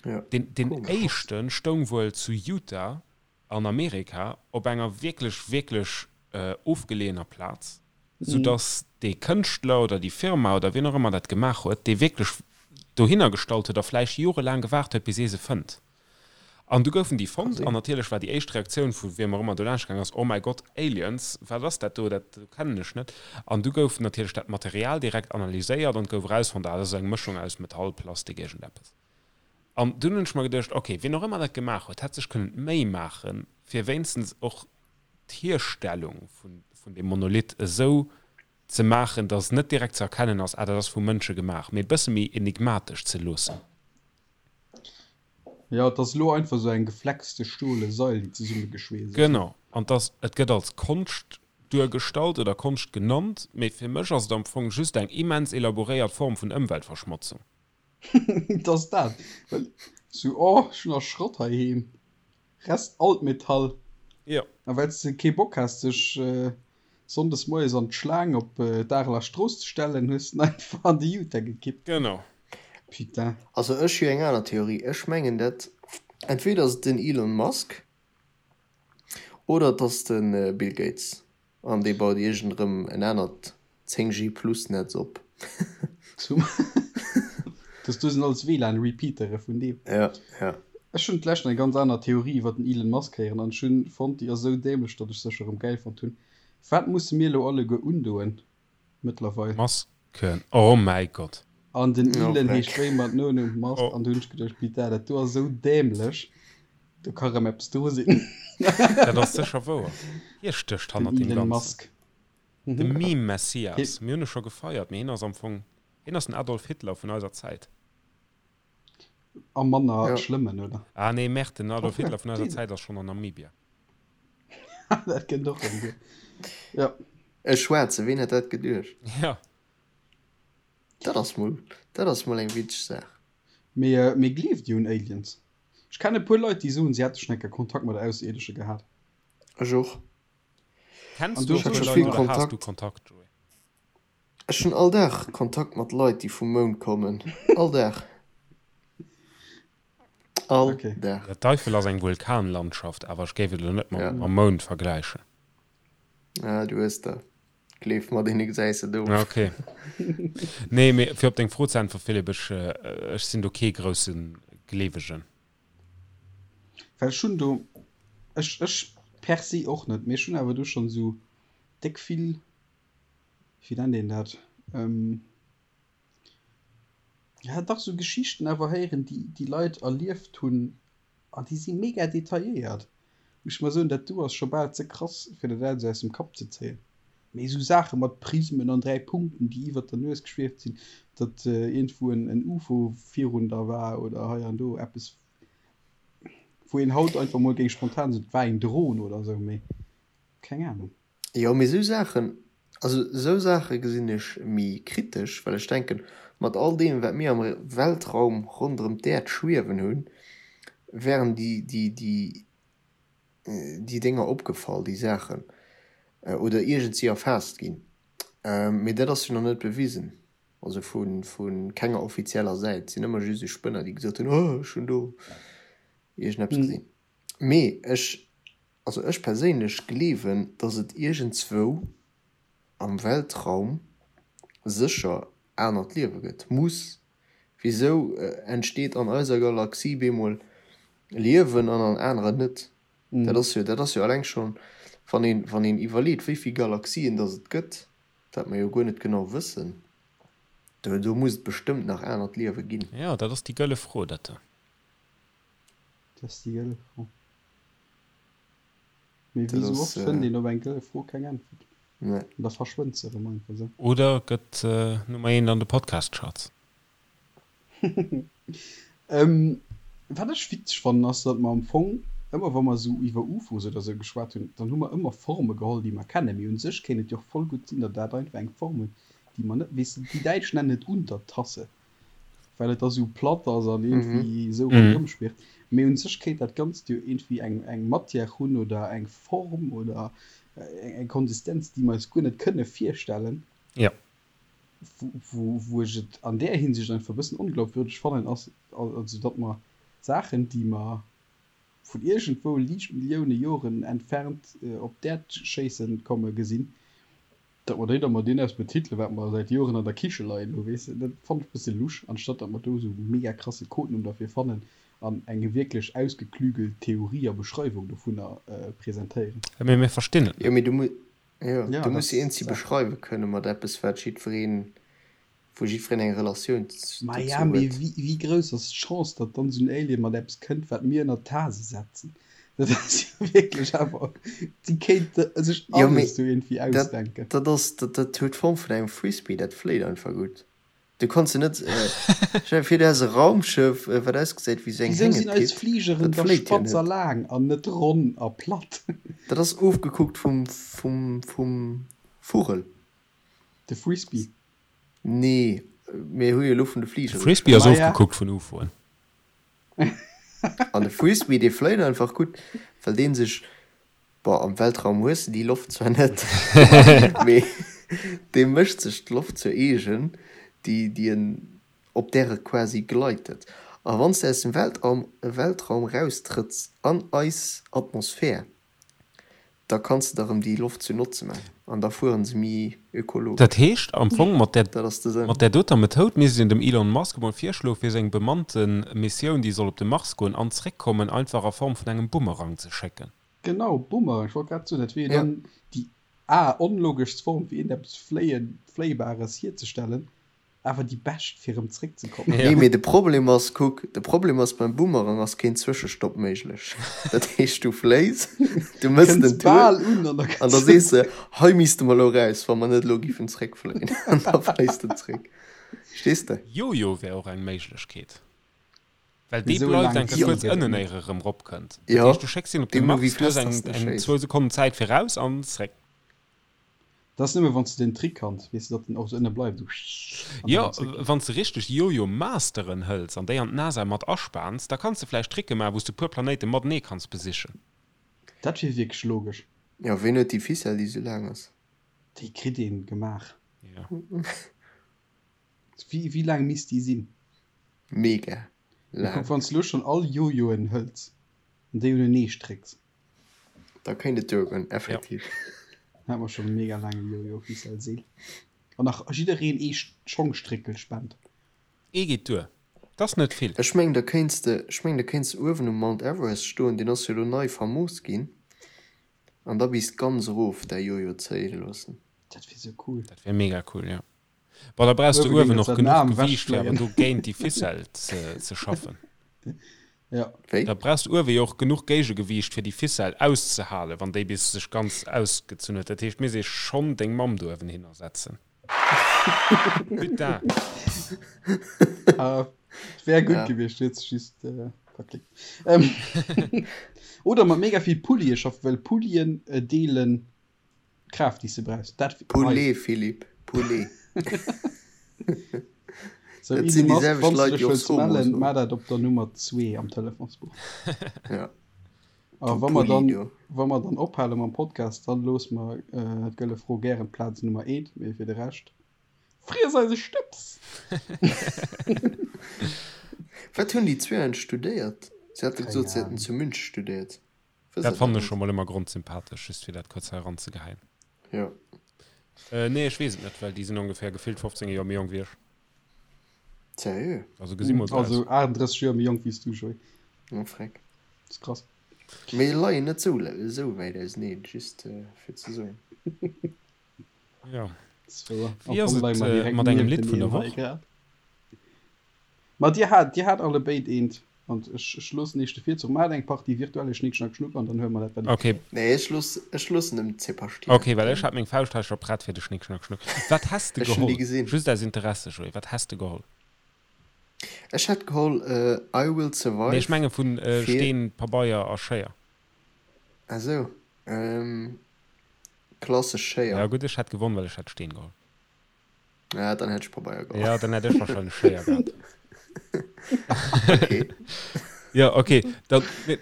Ja. Deen, deen Komesch. éischte stoung wuel zu Utah an Amerika op enger wierklech, wierklech ofgeleeëner Plaz, soudass dee Kënschtler oder déi Firma oder wien och ëmmer dat gemaach huet, dee wierklech dohinner gestallt huet a vläicht jorelaang gewaart huet, bis ee se fënnt. An du goufen déi fonnt an natierlech war déi éischt Reaktioun vu wiem och ëmmer do laanscht gaang ass, Oh mäi Gott, Aliens, wat ass dat do, dat do kennen ech net. An du gouf natierlech dat Material direkt analyséiert an et gouf erausfonnt, ah, dat ass eng Mëschung aus Metall, Plastik, iergendeppes. An dunn hunn ech mer geduecht, ok, wien och ëmmer dat gemaach huet, hätt sech kënnen d'Méi maachen, fir wéinstens och d'Hierstellung vun, vun deem Monolith esou ze maachen, datt net direkt ze erkennen ass, ah, dat ass vu Mënsche gemaach, mee e bësse méi enigmatesch ze loossen. Jo, et ass elo einfach esou eng geflexte stole Sail, déi zesummegeschweesst ass. Genau. An 't ass, et gëtt als Konscht duergestallt oder Konscht genannt, mee fir mech ass et am Fong just eng immens elaboréiert Form vun Ëmweltverschmotzung. Et ass dat, well sou, oh, ech hunn nach Schrott heiheem, Rest Altmetall. Jo. A well s de kee Bock has, dech sonndes moies an d'Schlaang op d'Areler Strooss ze stellen, hues de en einfach an de Utah gekippt. Genau. Putain. Also ech hu eng aner Theorie. Ech mengen dat entweder ass et den Elon Musk oder et ass de Bill Gates an dee baut iergend erëm en anert 10G plus Netz op. Zum Dass do sinn alles WLAN Repeatere vun deem. Ja, ja. Ech hunn d'lescht eng ganz aner Theorie iwwer den Elon Musk héieren an ech hunn fonnt déi ass esou dämlech datt ech se scho rëm gäil fonnt hunn. Wat musse mir elo alleguer undoen mëttlerweil? Masken, oh mäi Gott. An den Elon heescht wéi mat Nonumm Musk an do hunn ech geduecht, Putain dat do ass esou dämlech, do ka rëm eppes dru sinn. Dat ass sécher wouer. Hie stécht Den hannert deem Elon Ganzen. Musk. De Meme-Messias. Mir hunn e scho gefeiert, mee hien ass am Fong, hien ass den Adolf Hitler vun eiser Zäit. A manner Ja. schlëmmen, oder? Ah nee, Merde, den Adolf Obwuel, Hitler vun eiser deen. Zäit ass schonn an Namibia. Dat kënnt och erëm guer. Ja. E Schwaarze, ween hätt dat geduecht? Ja. Dat ass mol, dat ass mol eng witzeg Saach. Mee, mee gleeft Dir un Aliens? Ech kennen e puer Leit, déi soen, si hätte schonn eng Kéier Kontakt mat Ausserierdesche gehat. Ech och. Kenns An du du e puer scho Leit vill oder has du Kontakt. Kontakt, Joé? Ech hunn all Dag Kontakt mat Leit, déi vum Mound kommen. All Dag. All Okay. Dag. Ja, d'Eifel ass eng Vulkanlandschaft, awer ech géif et elo net mam Ja. mam Mound vergläichen. Ah, du hues der. Gleef mer, deene gesäis de Ja, of. okay. Nee, mee fir op deng Fro ze äntweren, Philippe, ech, ech sinn do kee grousse Gleewegen. Well ech hunn do, ech, ech per se och net, mee ech hunn awer do schonn esou déck vill, wéi nennt een dat, ja dach esou Geschichten awer héieren, déi déi Leit erlieft hunn an déi si mega detailléiert. Muss ech mol soen, dat do ass scho bal ze krass, fir dat alles aus dem Kapp ze zéien. Mee esou Saache mat Prismen an 3 Punkten, déi iwwert der Nues geschwieft sinn, datt iergendwou en Ufo virun der war oder hei an do eppes, wou een haut einfach mol géing spontan soen, et war eng Dron oder esou, mee keng Anung. Jo, mee esou Saachen, also esou Saache gesinn ech méi kritesch, well ech denken, mat all deem, wat mir am Weltraum ronderëm d'Äerd schwiewen hunn, wären déi, déi, déi déi Dénger opgefall, déi Saachen, oder iergendsi erfaasst ginn. Mee dat ass jo nach net bewisen, also vu kenger offizieller Säit. Et sinn ëmmer just esou Spënner, déi gesot hunn, oh ech hunn do iergendeppes gesinn. Mee ech, also ech perséinlech gleewen, datt et iergendzwou am Weltraum sécher anert Liewe gëtt, muss. Wisou entsteet an eiser Galaxie bemol Liewen an an aneren net? Dat ass jo, dat ass jo alleng schonn, wann een, wann een iwwerleet, wéi vill Galaxien datt et gëtt, wat mer jo guer net genau wëssen, do, do muss et bestëmmt nach anert Liewe ginn. Jo, dat ass déi gëlle Fro, dat do. Dat ass déi gëlle Fro. Mee Dat wéi sou ass, oft fënnt een op eng gëlle Fro keng Äntwert. Nee. An da verschwënnt se erëm einfach sou. Oder gëtt Nummer eent an de Podcast-Charts. Wat ech witzeg fannen ass, datt mer am Fong ëmmer wa mer esou iwwer UFOs oder esou geschwat hunn, dann hu mer ëmmer Forme geholl déi mer kennen. Mee un sech kéint et jo och voll gutt sinn, datt dat einfach eng Form huet déi mer net, weess de, déi Däitsch nennen et Untertasse, well et da sou platt ass an iergendwéi esou ronderëm schwirrt. Mee un sech kéint dat Ganzt jo iergendwéi eng eng Matière hunn oder eng Form oder eng Konsistenz déi mer eis guer net kënne virstellen. Jo. Wou ech et an där Hinsicht einfach e bëssen onglaubwürdeg fannen, ass also, datt mer Saachen, déi mer vun iergendwou liicht Millioune Joren entfernt op d'Äerd schéisse komme gesinn, datt mer déi da mat deem eppes betitelen, wat mer säit Joren an der Kiche leien hu, weess de. Dat fannen ech e bësse lusch, anstatt datt mer do esou e mega krasse Codenumm derfir fannen an eng wierklech ausgeklügelt Theorie a Beschreiwung dovunner presentéieren. Mee mir verstinn et Jo, net. mee du muss, Jo, Ja, du muss dat se eenzi ass. beschreiwe kënne mat eppes, wat jiddwereen, wou jiddwereen eng Relatioun Maja, dozou mee huet. wéi, wéi grouss ass d'Chance, datt dann esou en Alien mat eppes kënnt, wat mir ënner d'Tase setzen? Dat ass jo wierklech awer, déi kéinte sech Jo, mee alles do iergendwéi dat, ausdenken. dat ass, dat, dat huet d'Form vun engem Frisbee, dat fléit einfach gutt. Du kanns se net, stell dir vir, du häss e Raumschëff, wat ausgesäit wéi sou eng Wisou sinn eis Hängepitt, Fligeren dat da fléit jo spatz a net. laang an net ronn a platt? Dat ass ofgekuckt vum, vum, vum Vugel. De Frisbee. Nee, mir hu jo elo vun de De Fligere Frisbee ass geschwat. Maja. ofgekuckt vun UFOen. An de Frisbee, dee fléit einfach gutt, well dee sech Bon, am Weltraum hues de déi Loft zwar net, mee dee mécht sech d'Loft zur eegen, déi, déi en Op där e quasi gleitet. A wann s de aus dem Weltraum Weltraum raustrëtts an eis Atmosphär, da kanns de der erëm déi Loft zu Notze man an da fueren se méi ökologesch. Dat heescht am Fong, mat där Dat ass de Sënn. mat där doter Methoud misst een dem Elon Musk emol virschloe fir seng bemannte Missioun, déi soll op de Mars goen an zréckkommen, einfach a Form vun engem Bumerang ze schécken. Genau, Bumerang, ech wollt grad soen, dat wier jo Ja. dann déi a onlogeschst Form fir iergendeppes Fléien, Fléibares hierzestellen. Awer déi bescht fir erëm zréck ze kommen. Nee, mee de Problem ass, kuck, de Problem ass, beim Boomerang ass keen Zwëschestopp méiglech. Dat heescht, du fléis, du mëss den Kënns Tour bal un an da an kënns da de sees de, zréck. hei misste mer elo raus, wa mer net elo giffen zréckfléien. An da fléis de zréck. Verstees de? Jojo wär och eng Méiglechkeet, well dee Esou bleift laang eng Kéier Zil kuerz gëtt et ënnen, net. éier e rëm ropkënnt. Dat Jo, heescht, du schécks hien op de deemno wéi Mars, du hues fest eng dass de eng schéiss. zwou Sekonnen Zäit fir raus an zréck. Dat ass nëmme wann s de den Trick kanns, weess de, datt den och esou ënne bleift, esou an dann Jo, erëm zréck geet. wann s de richteg Jojo-Masteren hëls an déi an d'NASA mat aspaans, da kanns de vläicht Tricke maachen, wou s de puer Planéite matenee kanns besichen. Dat wier wierklech logesch. Jo, ween huet déi Ficelle, déi esou laang ass? Déi kritt een gemaach. Jo. Wéi, wéi laang misst déi sinn? Mega Mee kuck, laang. wann s de elo schonn all Jojoen hëls an déi unenee strécks. Da kéint et duergoen, effektiv. Dann hätte mer schonn e mega laange Jojo-Ficelle-Seel. An nach jiddereen ee Schongstréckel spent. Ee geet duer. 't ass net vill. Ech mengen, da kéints de, ech mengen, da kéints de uewen um Mount Everest stoen, deen ass jo elo nei famos ginn, an da bis ganz erof däi Jojo zéie loossen. Dat wier sou cool. Dat wier mega cool, jo. Bon, da brauchs de Uewe géing uewen et och den genuch Aarm Gewiicht, fir awer ewechfléien. do géint déi Ficelle ze, ze schaffen. Ja. Wéi? Da brauchs de uewe jo och genuch Géigegewiicht, fir déi Ficelle auszehalen, wann déi bis sech ganz ausgezunn huet. Dat heescht, misst ee schonn deng Mamm do uewen hinner setzen. Putain! Ah, wär gutt Ja. gewiescht, huet sech just äh, verklickt. Ähm, oder mat mega vill Pullie schaffen, well Pullien äh, deelen D'Kraaft déi s de brauchs. Dat hei. Poulet, Philippe, Poulet. Sou, Dat Elon sinn déi Musk, selwecht wann s de Leit, dech déi och wëlls Somo mellen, soen. maach dat op der Nummer 2 am Telefonsbuch. Ja. A Du wa mer Pulli, dann, du. wa mer dann ophale mam Podcast, dann loosse mer d'Gëlle Fro gären d'Plaz Nummer eent, mee fir de Rescht, friess eise Stëbs! Wat hunn déi zwee eigentlech studéiert? Si hate Keng gesot, si hätten Ahnung. zu München studéiert. Dat fannen ech scho mol ëmmer grondsympathesch, just fir dat kuerz hei eranzegeheien. Jo. Äh, nee, ech weess et net, well déi sinn ongeféier gefillt 15 Joer méi jonk wéi ech. Seriö? Also gesi mol sou aus. Also 38 Joer méi jonk wéi s du, Joé. Oh, freck. Dat ass krass. Mee leien net sou, sou wäit auseneen, just fir ze soen. Jo. Dat ass wouer. Wéi Am ass Fong leie et mer direkt mat engem Lidd vun niefteneen der hei Woch? grad. Ma dir hat, dir hat allebéid eent an ech, ech loossen iech de Virzuch. Maacht eng Partie virtuelle Schnick Schnack Schnuck an dann huele mer dat wat Okay. Nee, ech looss, ech loossen dem Zebastian. Okay, well ech hat meng Fauscht hei scho prett fir de Schnick Schnack Schnuck. Wat häss de Ech hunn déi geholl? gesinn. Just aus Interesse, Joé, wat häss de geholl? Ech hätt geholl I Will Nee, ech Survive menge vun fir. Steen, Pabeier a Schéier. Ah sou, klassesch Schéier. Ja gutt, ech hätt gewonn, well ech hätt Steen geholl. Ja, dann hätt ech Pabeier geholl. Ja, dann hätt ech wahrscheinlech Schéier gehat. Okay. Ja, okay. Dann, nee,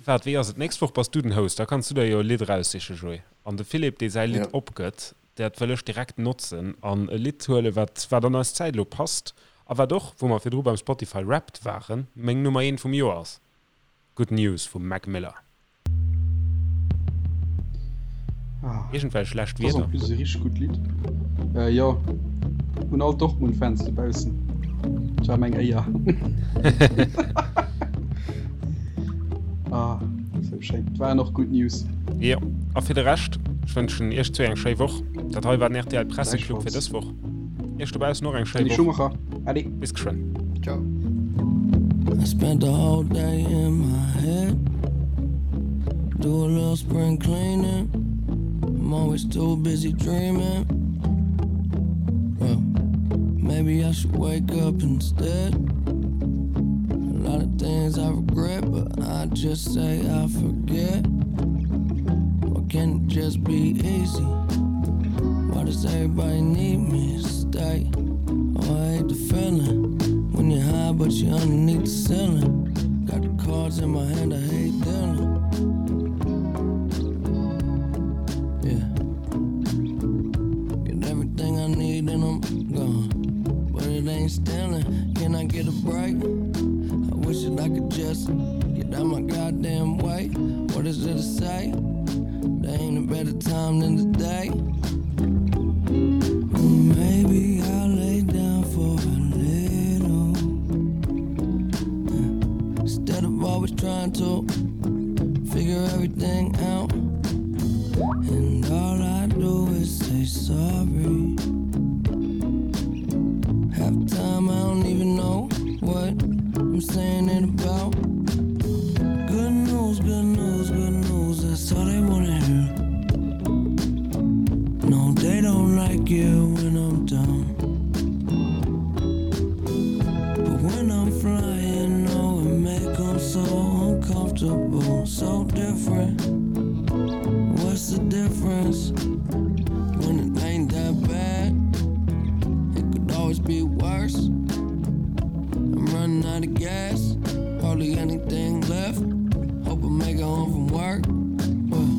waart, wéi ass et? D'nächst Woch bass du den Host, da kanns du der jo e Lidd eraussichen, Joé. An de Philippe, dee säi Lidd Ja. opgëtt, dat wëll ech direkt notzen an e Lidd huelen, wat, wat an eis Zäit elo passt a wat och, wou mer virdru beim Spotify Wrapped waren, meng Nummer eent vum Joer ass. Good News vum Mac Miller. Iergendwelch lescht Das ass en Wierder? plus e richteg gutt Lidd. Äh, jo, un all Dortmund-Fans dobaussen, et war meng Éier. Ah, sou schéin. Et waren och gutt News. Jo, a fir de Rescht, ech wënschen iech zwee eng schéi Woch. Dat hei war den rtl Presseclub fir Gläichfalls. dës Woch. Iech dobaussen och eng schéi Dany Woch. Schumacher, allez. Bis geschwënn. Ciao. I spent the whole day in my head. Do a little spring cleaning. I'm always too busy dreaming. Well, maybe I should wake up instead. A lot of things I regret, but I just say I forget. Why can't it just be easy? Why does everybody need me to stay? Oh, I hate the feeling when you're high, but you're underneath the ceiling. Got the cards in my hand, I hate dealing. Yeah. Get everything I need and I'm gone. But it ain't. ain't stealing. Can I get a break? I wish that I could just get out my goddamn way. What is there to say? There ain't a better time than today. Maybe I'll lay down for a little. Instead of always trying to figure everything out. And all I do is say sorry. Half the time I don't even know what I'm saying it about. Good news, good news, good news, that's all they wanna hear. No, they don't like you when I'm down. But when I'm flying, oh, it make 'em so uncomfortable, so different. What's the difference? When it ain't that bad, it could always be worse. I'm running out of gas, hardly anything left. Hope I make it home from work. Well,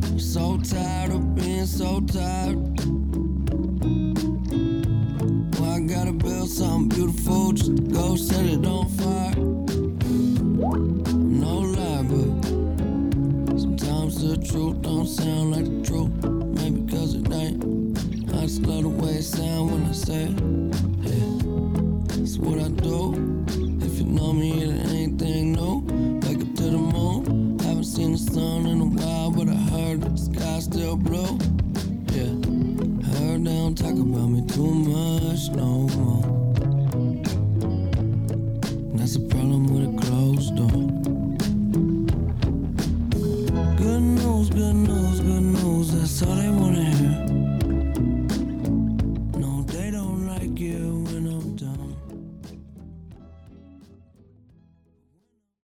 I'm so tired of being so tired. Well, I gotta build something beautiful just to go set it on fire. I'm no lie, but sometimes the truth don't sound like the truth. Maybe cause it ain't. I just love the way it sound when I say it. Yeah, that's what I do. If you know me, it ain't anything new. Wake up to the moon. Haven't seen the sun in a while, but I heard that the sky's still blue. Yeah, heard they don't talk about me too much no more.